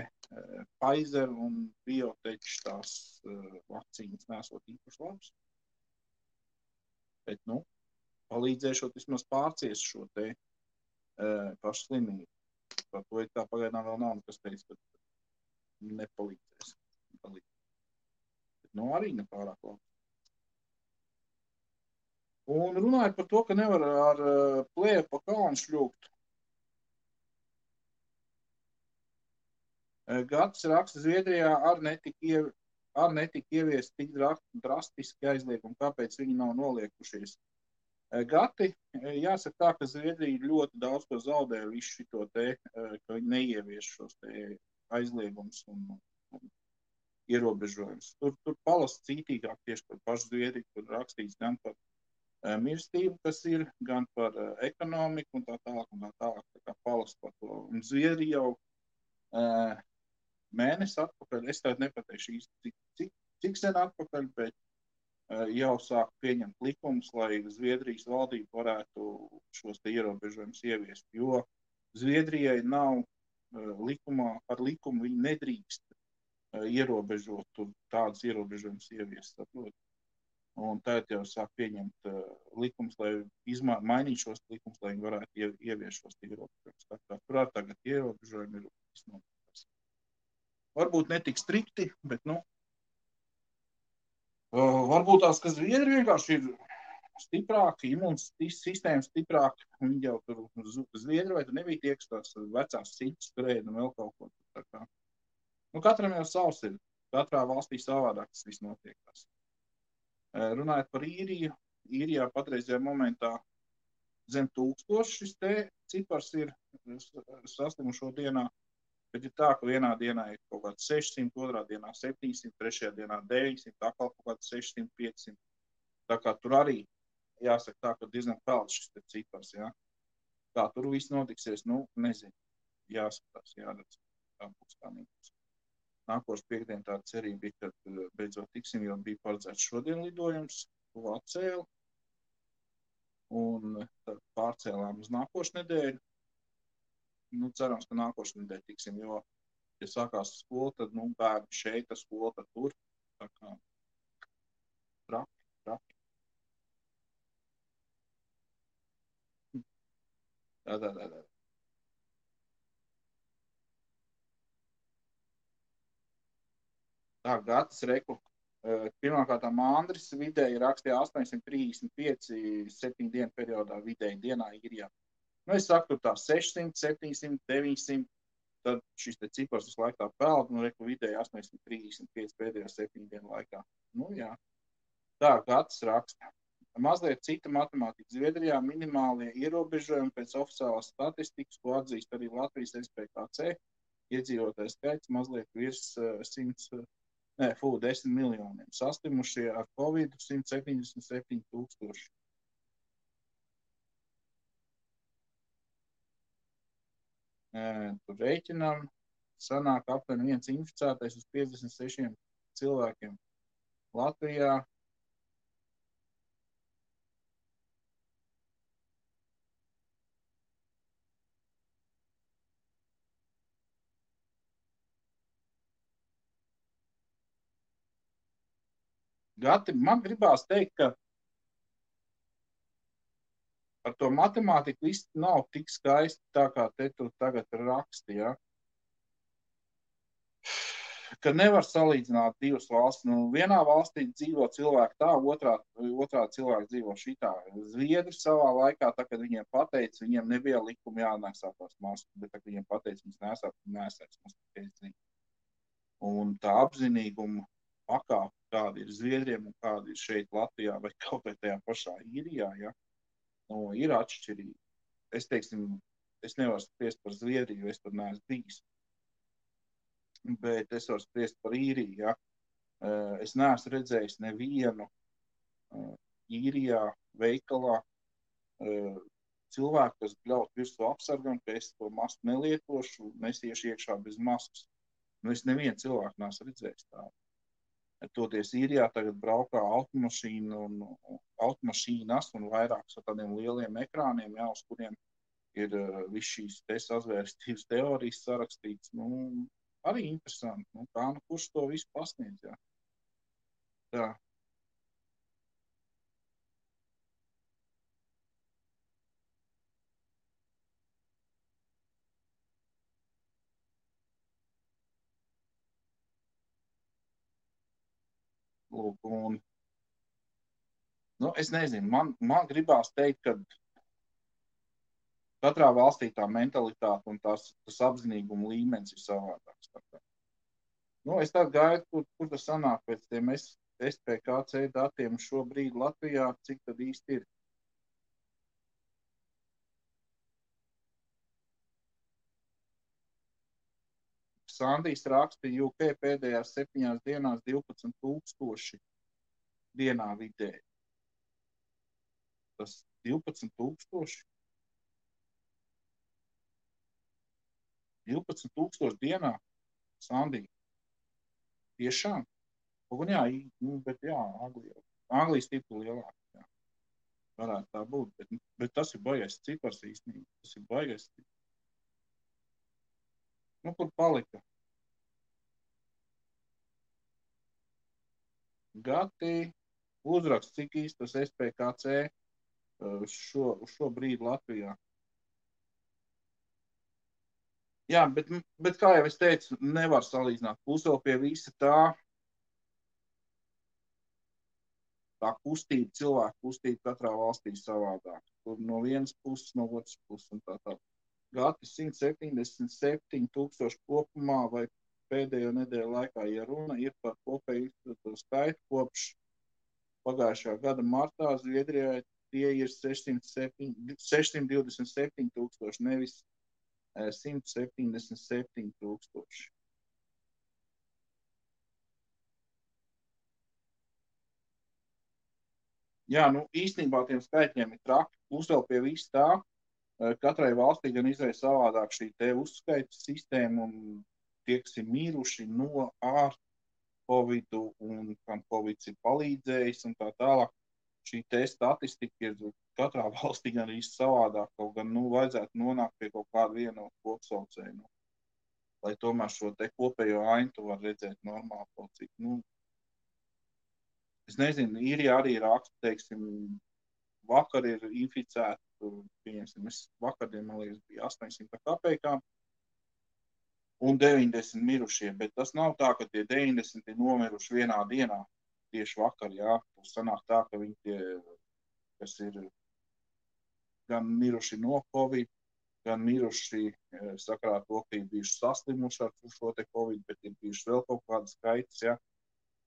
Pfizer un Biotech tās vakcīnas nesot īpaši labas. Bet, palīdzēšot vismaz pārciest šo te pašu slimību. Par to ir tā pagaidām vēl nav nekas teicis, bet nepalīdzēs. Bet, arī nepārāk labi. Un runājot par to, ka nevar ar plēju pa kalnu šļūkt. Gatis raksta, Zviedrijā ar netika ieviest tik drastiski aizliegumi, kāpēc viņi nav noliekušies. Gati, jāsaka tā, ka Zviedrija ļoti daudz ko zaudē visu šito te, ka viņi neievieš šos te aizliegumus un ierobežojumus. Tur palasa cītīgāk tieši par pašu Zviedriju, kur rakstīts gan par mirstību, kas ir, gan par ekonomiku un tā tālāk, tā kā palasa par to. Un Zviedrija jau mēnesi atpakaļ, es tādu nepateikšu īsti, cik sen atpakaļ, bet jau sāk pieņemt likumus, lai Zviedrijas valdība varētu šos te ierobežojumus ieviest, jo Zviedrijai nav ar likumu viņi nedrīkst ierobežot tādus ierobežojumus ieviest, saprot. Un tagad jau sāk pieņemt likumus, lai mainīt šos likumus, lai viņi varētu ieviest šos ierobežojumus. Tā kā tur tagad ierobežojumi ir visnotaļ. Varbūt ne tik strikti, bet, varbūt tās, ka Zviedri vienkārši ir stiprāki, imūns sistēma stiprāka. Viņi jau tur Zviedri, vai tur nebija tie, kas tās vecās citas turēja un vēl kaut ko. Tā kā. Katram jau savs ir. Katrā valstī savādāk tas viss notiekās. Runājot par Īriju, Īrijā patreizajā momentā zem 1000 šis te cipars ir saslimušo dienā, bet ir tā, ka vienā dienā ir kaut kāds 600, otrā dienā 700, trešajā dienā 900, atkal kaut kāds 600, 500. Tā kā tur arī jāsaka tā, ka diezgan pelds šis te cipars, jā. Kā tur viss notiksies, nezinu. Jāskatās, jāredz, kā būs kā nebūs. Nākošu piekdien tā cerība bija, kad beidzot tiksim, jo bija paredzēts šodien lidojums, to atcēla. Un tad pārcēlām uz nākošu nedēļu. Cerams, ka nākošu nedēļu tiksim, jo, ja sākās skola, tad, bērni šeit, skola, tad tur. Tā kā traki. Tā. Tā, Gatis reku. Pirmkārtām Andris vidēji rakstīja 835 7 dienu periodā vidēji dienā Īrijā. Es saku, tur tā 600, 700, 900, tad šis te cipars visu laiku tā peld, reku vidēji 835 pēdējā 7 dienu laikā. Jā. Tā, Gatis raksta. Mazliet cita matemātika. Zviedrijā minimālie ierobežojumi pēc oficiālās statistikas, ko atzīst arī Latvijas SPKC, iedzīvotāju skaits mazliet virs 10 miljoniem. Saslimušie ar Covid 177 000. Tur rēķinām, sanāk aptuveni viens inficētais uz 56 cilvēkiem. Latvijā Gati, man gribās teikt, ka ar to matemātiku viss nav tik skaisti tā, kā te tu tagad raksti, ja? Ka nevar salīdzināt divas valstis. Vienā valstī dzīvo cilvēki tā, otrā cilvēki dzīvo šitā. Zviedri savā laikā, tā, kad viņiem pateica, viņiem nebija likuma jānesā tās maskas, bet tā, kad viņiem pateica, viņas nesās maskas. Un tā apzinīguma pakāpe, kāda ir Zviedriem un kāda ir šeit Latvijā vai kaut vai tajā pašā Īrijā, ja, nu, ir atšķirīgi. Es teiksim, es nevaru spriest par Zviedriju, es tur neesmu bijis. Bet es varu spriest par Īriju, ja. Es neesmu redzējis nevienu Īrijā veikalā cilvēku, kas bļaut virsū apsargam, ka es to masku nelietošu, nesiešu iekšā bez maskas. Nu, es nevienu cilvēku neesmu redzējis tādu. Toties Īrijā tagad braukā automašīnas un vairākas ar tādiem lieliem ekrāniem, jā, uz kuriem ir viss šīs sazvērstības teorijas sarakstīts. Nu, arī interesanti. Nu, kā nu kurš to visu pasniedz, jā. Tā. Lūk, un, nu, es nezinu, man gribās teikt, ka katrā valstī tā mentalitāte un tas apzinīguma līmenis ir savādāks. Nu, es tā gaidu, kur tas sanāk pēc tiem SPKC datiem šobrīd Latvijā, cik tad īsti ir. Sandijs raksta, UK pēdējās 7 dienās 12,000 dienā vidēji. Tas 12,000? 12,000 dienā Sandija. Tiešām? Un jā, bet jā, Anglija stipri lielāk. Jā. Varētu tā būt, bet tas ir baigais cipars īstenībā. Tas ir baigais cipars. Nu, kur palika? Gati uzraksts, cik īsti tas SPKC šo brīdi Latvijā. Jā, bet kā jau es teicu, nevar salīdzināt. Plus vēl pie visa tā kustība, cilvēku kustība katrā valstī savādāk. Tur no vienas puses, no otras puses un tā. Gati 177,000 kopumā vai pēdējo nedēļu laikā, ja runa ir par kopēju skaitu kopš pagājušā gada martā, Zviedrijā tie ir 627,000, nevis 177,000. Jā, nu īstenībā tiem skaitļiem ir traki. Plus vēl pie viss tā, katrai valstī gan izvēl savādāk šī te uzskaitas sistēma un tie, kas ir miruši no ar Covidu un kam Covids ir palīdzējis un tā tālāk. Šī te statistika ir katrā valstī gan arī savādāk, kaut gan, nu, vajadzētu nonākt pie kaut kāda viena kopsaucēja, lai tomēr šo te kopējo ainu tu var redzēt normāli kaut cik, nu, es nezinu, Īrijā arī raksta, teiksim, vakar ir inficēti, pieņemsim, vakardien, man liekas, bija 800 kapekām un 90 mirušie, bet tas nav tā, ka tie 90 ir nomiruši vienā dienā, tieši vakar, jā, tas sanāk tā, ka viņi tie, kas ir gan miruši no Covid, gan miruši sakarā to, ka ir bijuši saslimuši ar šo te Covid, bet ir bijuši vēl kaut kāda skaitas, jā.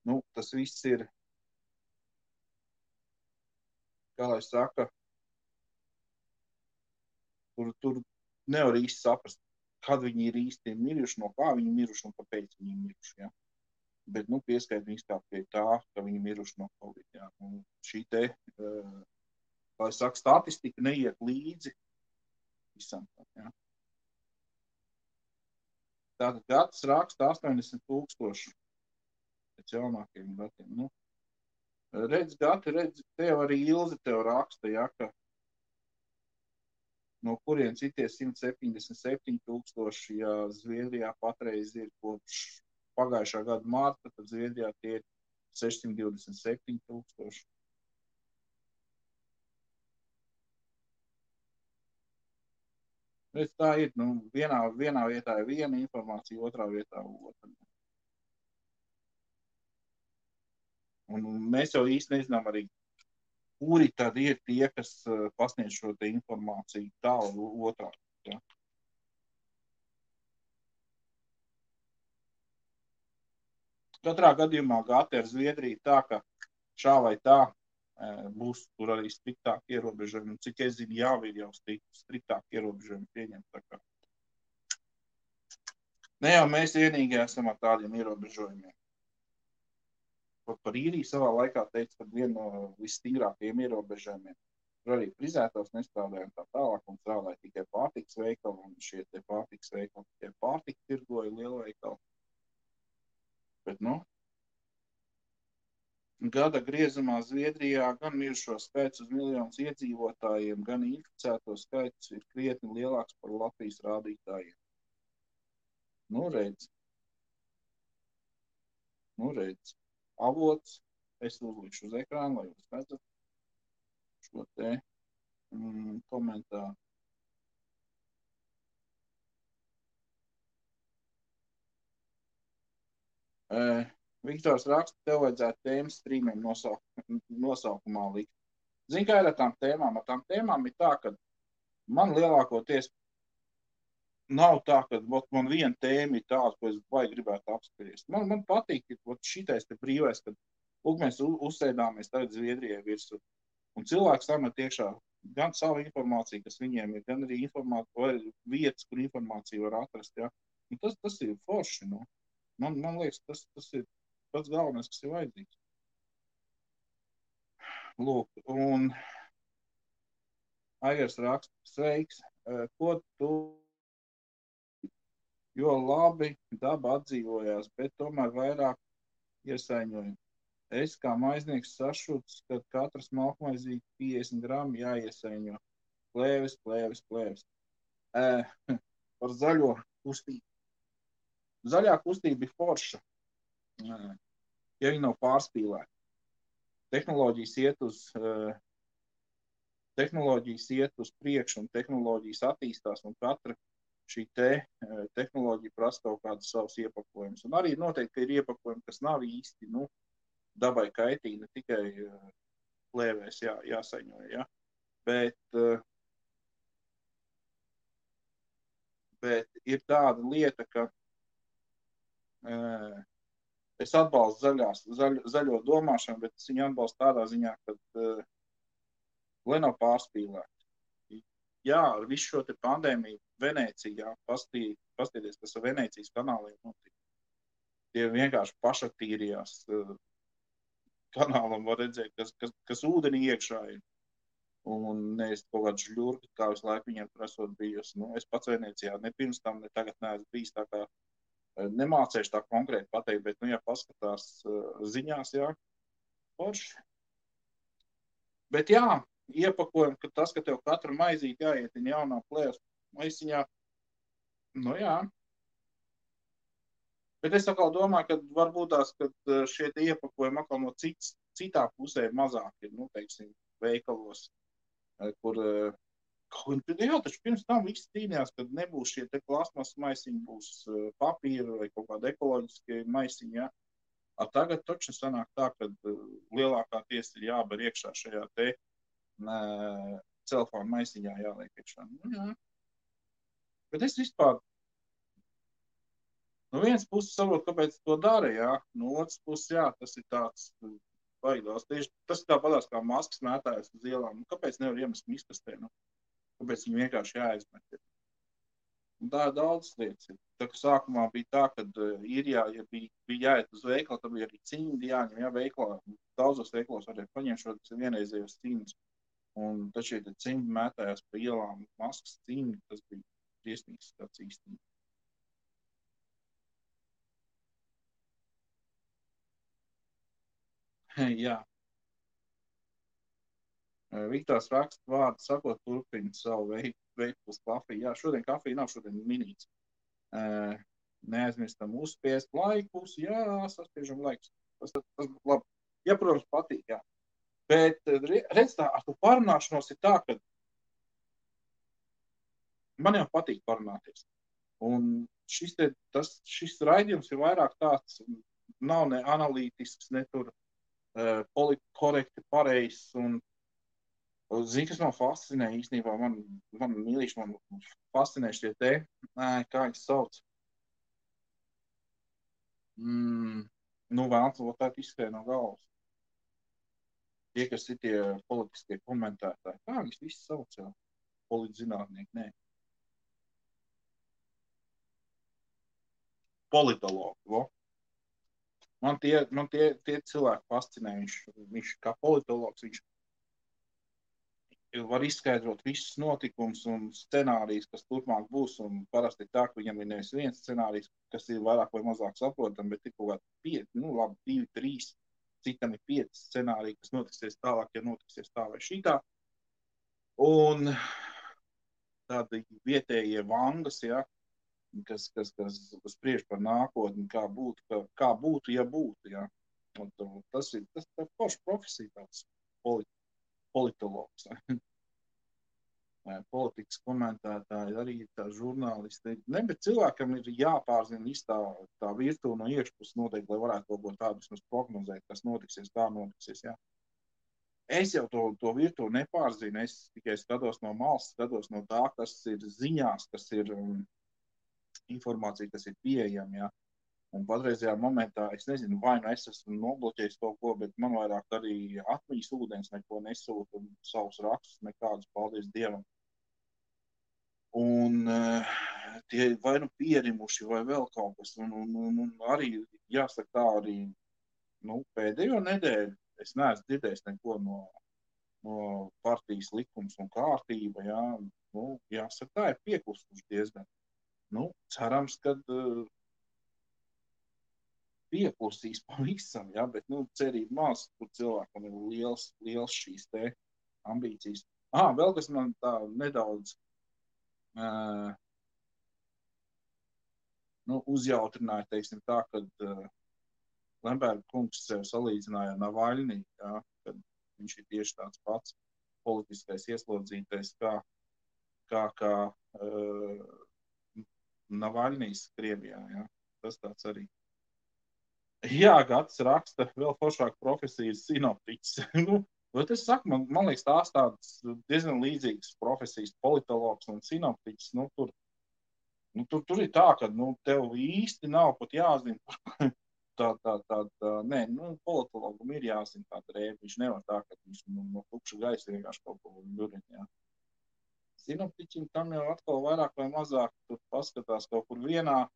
Nu, tas viss ir, kā lai saka, tur nevar īsti saprast, kad viņi ir īsti miruši, no kā viņi miruši un kāpēc viņi miruši, jā. Bet, nu, pieskait viņus tā pie tā, ka viņi miruši no Covid, jā. Un šī te, kā lai saka, statistika neiet līdzi visam, jā. Tātad gads raksta 80,000 pēc jaunākiem datiem, nu. Redz, tev arī Ilze tev raksta, ja, ka no kuriem citie 177,000, ja Zviedrijā patreiz ir kopš pagājušā gada marta, tad Zviedrijā tie ir 627,000. Bet tā ir, nu, vienā vietā ir viena informācija, otrā vietā otra. Un mēs jau īsti nezinām arī, kuri tad ir tie, kas pasniedz šo te informāciju tālu otrā. Ja? Katrā gadījumā gāti ar Zviedriju tā, ka šā vai tā būs tur arī striktāk ierobežojumi. Cik es zinu, jau ir jau striktāk ierobežojumi pieņemti. Ne jau mēs vienīgie esam ar tādiem ierobežojumiem. Par īriju savā laikā teica, ka viena no visstingrākajiem ierobežojumiem tur arī frizētājs nestrādāja un tā tālāk, un strādāja tikai pārtikas veikali, un šie te pārtikas veikali tikai pārtiku tirgoja lielveikali. Bet, gada griezumā Zviedrijā gan mirušo skaits uz miljonus iedzīvotājiem, gan inficēto skaits ir krietni lielāks par Latvijas rādītājiem. Redz. Avots, es uzlikšu uz ekrānu, lai jūs redzat šo te komentāru. Viktors raksta, tev vajadzētu tēmas strīmiem nosaukumā likt. Zini, kā ir ar tām tēmām? Ar tām tēmām ir tā, ka man lielākoties nav tā, ka man viena tēma ir tāda, ko es vai gribētu apspriest. Man patīk, ka šitais te brīvais, kad mēs uzsēdāmies tagad Zviedrijai virsū. Un cilvēks samet iekšā gan savu informāciju, kas viņiem ir, gan arī vietas, kur informāciju var atrast. Ja? Un tas ir forši. Nu. Man liekas, tas ir pats galvenais, kas ir vajadzīgs. Lūk, un Aigars raksta, sveiks, ko tu, jo labi daba atdzīvojās, bet tomēr vairāk iesaiņoja. Es kā maiznieks sašuts, ka katrs malkmaizīti 50 gramu jāiesaiņo. Plēvis. Par zaļo kustību. Zaļā kustība ir forša, ja viņi nav pārspīlēti. Tehnoloģijas iet uz priekšu un tehnoloģijas attīstās, un katra šī tehnoloģija prasa kaut kādus savus iepakojumus. Un arī noteikti ir iepakojumi, kas nav īsti, dabai kaitīgi, ne tikai plēvēs jāsaņo, ja? Bet ir tāda lieta, ka es atbalstu zaļo domāšanu, bet es viņu atbalstu tādā ziņā, ka lai nav pārspīlēti. Jā, ar visu šo te pandēmiju Venecijā, pastieties, kas ar Venecijas kanāliem notika. Tie vienkārši pašatīrījās kanālam, var redzēt, kas ūdenī iekšā ir. Un nevis kaut kāds žļurgi, kā visu laiku viņiem tur esot bijusi. Es pats Venecijā ne pirms tam, ne tagad neesmu bijis, tā kā nemācēšu tā konkrēti pateikt, bet, ja paskatās ziņās, jā, forši. Bet jā, iepakojam, ka tas, ka tev katru maizīti jāietina jaunā plēvas maisiņā, jā. Bet es atkal domāju, ka varbūt tās, ka šie te iepakojumi atkal no citā pusē mazāk ir, teiksim, veikalos, kur jā, taču pirms tam viss cīnījās, kad nebūs šie te plasmas maisiņi, būs papīra vai kaut kāda ekoloģiskie maisiņi, ja. Tagad taču sanāk tā, ka lielākā tiesa ir jāber iekšā šajā te celfona maisiņā jāliek iekšā. Jā. Bet es vispār no vienas puses saprotu, kāpēc to dara, jā. No otras puses, jā, tas ir tāds baigās. Tieši tas ir tāpatās kā maskas mētājas uz ielām. Kāpēc nevar iemest miskastē? Kāpēc viņi vienkārši jāizmet? Un tā daudz lietas ir. Tā kā sākumā bija tā, kad īrijā, ja bija jāiet uz veikalu, tad bija arī cimdi jāņem, jā, veikalā. Daudzos veikalos varēja paņemt šo vienreizējos cimdus. Un taču, ja cimdi mētājās pa ielām, maskas cimdi, tas bija briesmīgs tāds īstenībā. Jā. Viktors raksta vārdu sakot, turpina savu veidu uz kafiju. Jā, šodien kafija nav, šodien minīts. Neaizmirstam uzspiest laikus. Jā, saspiežam laikus. Tas būtu labi. Ja, protams, patīk, jā. Bet, redz tā, ar to parunāšanos ir tā, ka man jau patīk parunāties. Un šis raidījums ir vairāk tāds, nav ne analītisks, ne tur politkorekti pareizs un zini, kas man fascinē īstenībā, man mīlīši, man fascinē šie kā viņas sauc. Nu, vēlams, vēl tā izskrēja no galvas. Tie, kas ir tie politiskie komentētāji, kā viņus visi sauc jau? Politzinātnieki, nē. Politologi, vo. Man tie cilvēki fascinē. Viņš kā politologs, viņš var izskaidrot visus notikumus un scenārijus, kas turpmāk būs. Un parasti tā, ka viņam ir nevis viens scenārijs, kas ir vairāk vai mazāk saprotam, bet ir kaut kādi 5, 2, 3, citam ir 5 scenāriji, kas notiksies tālāk, ja notiksies tā vai šitā. Un tādi vietējie vangas, ja, kas spriež par nākotni, kā būtu, ja būtu. Ja. Un tas ir forša profesija, tāds politologs. Politikas komentētāji, arī tā žurnālisti. Ne, bet cilvēkam ir jāpārzina viss tā virtuve no iekšpuses noteikti, lai varētu kaut ko tādu vismaz prognozēt, kas notiksies, kā notiksies. Ja. Es jau to virtuvi nepārzinu, es tikai skatos no malas, skatos no tā, kas ir ziņās, kas ir informācija, kas ir pieejama. Ja. Un patreizajā momentā, es nezinu, vai nu es esmu nobloķējis kaut ko, bet man vairāk arī atmiņas ūdens neko nesūta un savus rakstus nekādus, paldies Dievam. Un tie vai nu pierimuši vai vēl kaut kas. Un arī, jāsaka tā, arī pēdējo nedēļu es neesmu dzirdējis neko no partijas likums un kārtība. Ja. Jāsaka tā, ir pieklusuši diezgan. Cerams, kad pieklusīs pavisam, ja, bet cerība maz, kur cilvēkam ir liels šīs te ambīcijas. Vēl kas man tā nedaudz uzjautrināja, teiksim tā, kad Lemberga kungs sev salīdzināja ar Navaļnī, ja, kad viņš ir tieši tāds pats politiskais ieslodzītais, kā Navaļnīs Krievijā. Ja. Tas tāds arī. Jā, Gatis raksta vēl foršāku profesiju sinoptiķis. Es saku, man liekas, tās tādas diezgan līdzīgas profesijas, politologs un sinoptiķis. Tur ir tā, ka tev īsti nav pat jāzina. Nē, politologam ir jāzina tāda rēba. Viņš nevar tā, ka viņš no tukša gaisa vienkārši kaut ko ļurina. Sinoptiķim tam jau atkal vairāk vai mazāk tur paskatās kaut kur vienā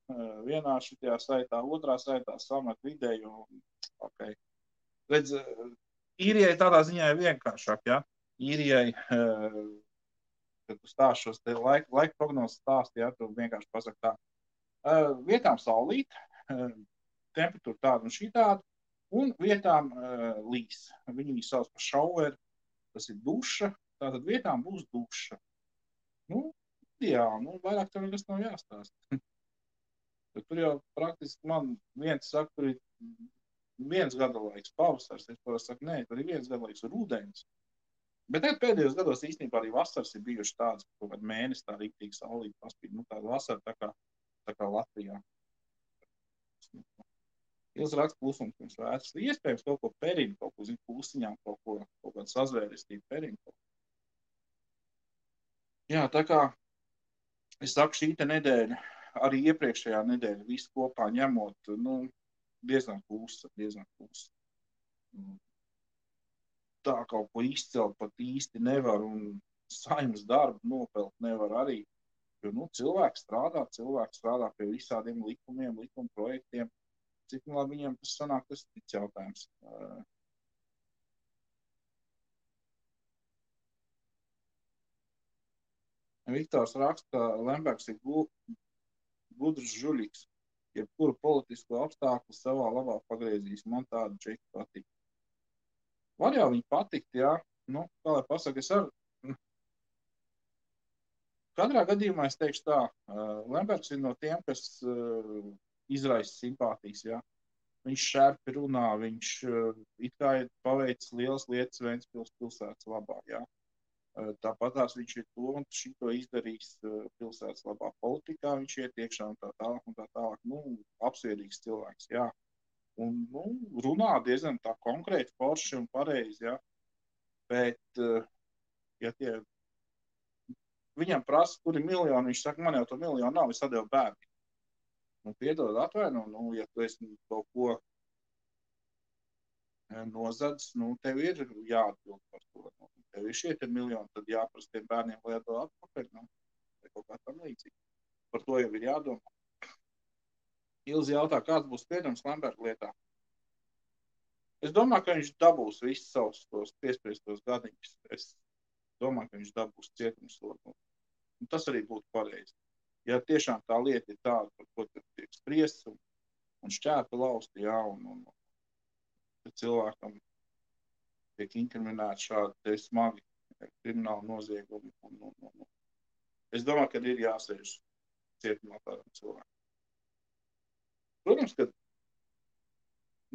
šitajā saitā, otrā saitā samet vidēju. Okay. Redz, īrijai tādā ziņā ir vienkāršāk, ja? Īrijai, kad tu stāst šos te laika prognozes stāsti, ja, tu vienkārši pasaki tā. Vietām saulīt, temperatūra tāda un šī tāda, un vietām līs. Viņi sauc par šauveru, tas ir duša, tātad vietām būs duša. Vairāk tev nekas nav jāstāst. Tur jau praktiski man viens saka, tur ir viens gadalaiks pavasars. Es parasti saku, nē, tur ir viens gadalaiks rudens. Bet pēdējos gados īstenībā arī vasaras ir bijuši tādas, ka kaut kādu mēnesi tā rīktīgi saulīt paspīd. Tāda vasara tā kā Latvijā. Ils raksta klusums pirms vētras. Iespējams kaut ko perinu, kaut ko pusiņām, kaut kādu sazvērestību perinu. Jā, tā kā es saku, šī te nedēļa, arī iepriekšējā nedēļa, visu kopā ņemot, diezgan klusa. Tā kaut ko izcelt pat īsti nevar, un saimnes darbu nopelt nevar arī, jo cilvēki strādā pie visādiem likumiem, likuma projektiem. Cik labi viņiem tas sanāk, tas ir cits jautājums. Viktors raksta, ka Lembergs ir gudrs žuļiks, jebkuru politisko apstākļu savā labā pagriezīs. Man tāda čeki patīk. Var jau viņi patikt, jā. Kā lai pasaka, es katrā gadījumā es teikšu tā, Lembergs ir no tiem, kas izraisa simpātijas, jā. Viņš šērpi runā, viņš it kā ir paveicis lielas lietas Ventspils pilsētas labā, jā. Tāpatās viņš ir to un šito izdarījis pilsētas labā politikā, viņš iet iekšā un tā tālāk. Apsvērīgs cilvēks, jā. Un runā diezgan tā konkrēti, forši un pareizi, jā. Bet, ja viņam prasa, kur ir miljoni, viņš saka, man jau to miljonu nav, es atdevu bērni. Piedod, atvaino, ja tu esi kaut ko nozadz, tev ir jāatbild par to. Tev ir šie miljoni, tad jāprasa tiem bērniem, lai atdod atpakaļ, vai kaut kā tam līdzīgi. Par to jau ir jādomā. Ilzi jautā, kāds būs spriedums Lemberga lietā. Es domāju, ka viņš dabūs visus savus tos piespriestos gadiņus. Es domāju, ka viņš dabūs cietumsodu. Un tas arī būtu pareizi. Ja tiešām tā lieta ir tāda, par ko tiek spriests un šķēpa lausti, jā, un cilvēkam tiek inkriminēti šādi smagi krimināli noziegumi. Es domāju, ka ir jāsēž cietumā tādam cilvēkam. Protams, ka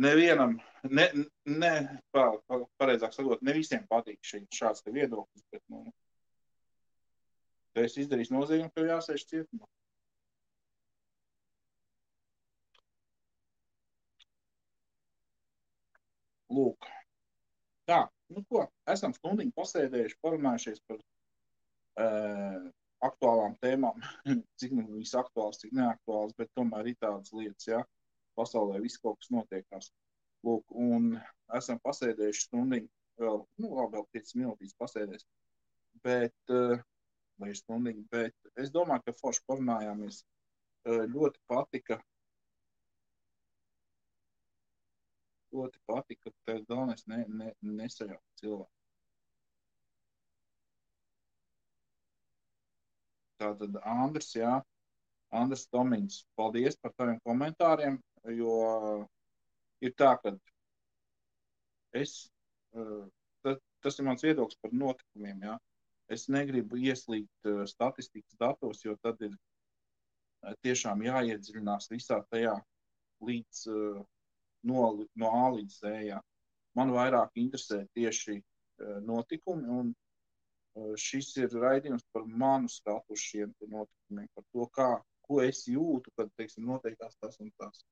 nevienam, pareizāk sakot, ne visiem patīk šāds te viedoklis, bet, ja es izdarīšu noziegumu, tev jāsēž cietumā. Lūk. Tā, ko? Esam stundiņu pasēdējuši, parunājušies par aktuālām tēmām, cik viņas aktuāls, cik neaktuāls, bet tomēr ir tādas lietas, jā. Pasaulē viss kaut kas notiekās. Lūk, un esam pasēdējuši stundiņu, vēl 5 minūtīs pasēdēs, vai stundiņu, bet es domāju, ka forši parunājāmies. Ļoti patika, ka tev galvenais nesajaukt cilvēku. Tātad Andris, jā, Andris Tomiņš, paldies par taviem komentāriem, jo ir tā, ka tas ir mans viedoklis par notikumiem, jā. Es negribu ieslīgt statistikas datos, jo tad ir tiešām jāiedziļinās visā tajā līdz no A līdz Z, jā. Man vairāk interesē tieši notikumi, un šis ir raidījums par manu skatu uz šiem notikumiem, par to, ko es jūtu, kad, teiksim, noteikās tas un tas.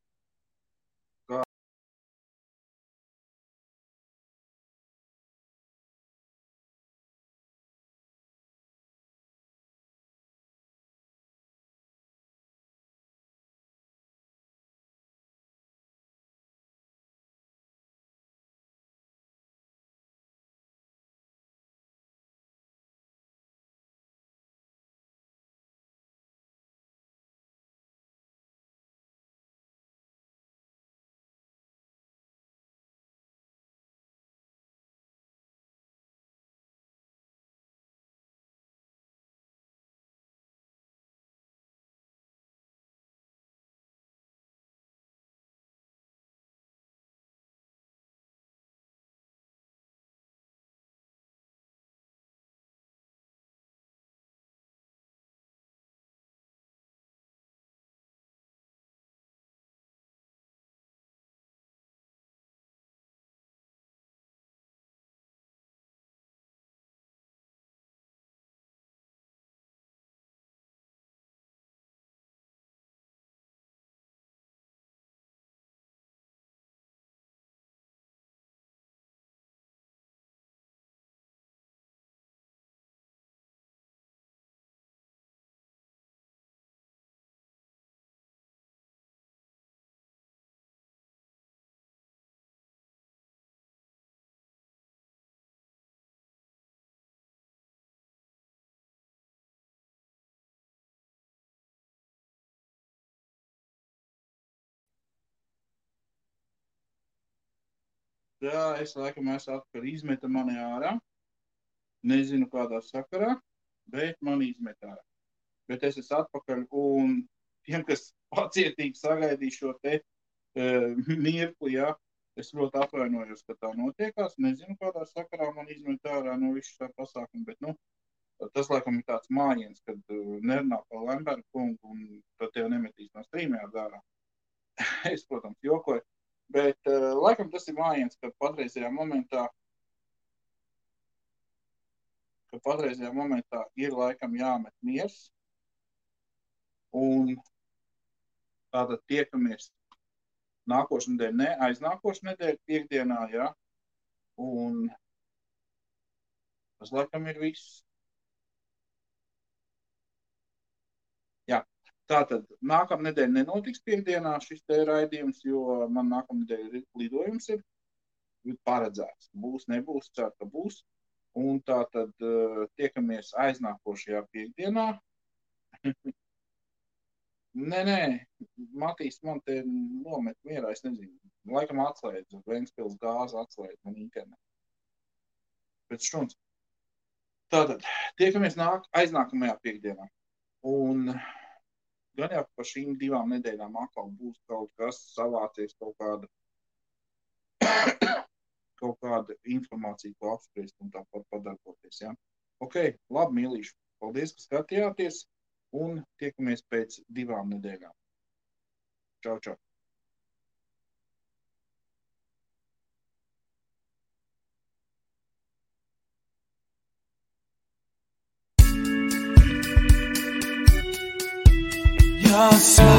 Jā, es laikam esmu atpakaļ, izmeta mani ārā. Nezinu, kādā sakarā, bet mani izmeta ārā. Bet es esmu atpakaļ, un tiem, kas pacietīgi sagaidīja šo te mirkli, jā, es ļoti atvainojos, ka tā notiekās. Nezinu, kādā sakarā man izmeta ārā no visu tā pasākumu, bet, tas laikam ir tāds mājiens, kad nerunā par Lemberga kungu, un tad tev nemetīs no streamējā ārā. Es, protams, jokoju. Bet laikam tas ir mājiens, ka patreizajā momentā ir laikam jāmet miers. Un tātad tiekamies nākošu nedēļu, ne aiznākošu nedēļu, piekdienā, jā. Un tas laikam ir viss. Jā. Tātad nākamnedēļ nenotiks piekdienā šis te raidījums, jo man nākamnedēļ lidojums ir. paredzēts. Būs, nebūs, ceru, ka būs. Un tā tad tiekamies aiznākošajā piekdienā. Nē, Matīs man te nomet mierā, es nezinu. Laikam atslēdz, Ventspils gāzi atslēdz man internetu. Pēc štuns. Tātad, tiekamies aiznākamajā piekdienā. Un gan jau par šīm 2 nedēļām atkal būs kaut kas savācies, kaut kāda informācija, ko apspriest un tāpat padarboties. Ja? Ok, labi, mīlīši. Paldies, ka skatījāties un tiekamies pēc 2 nedēļām. Čau, čau. You're so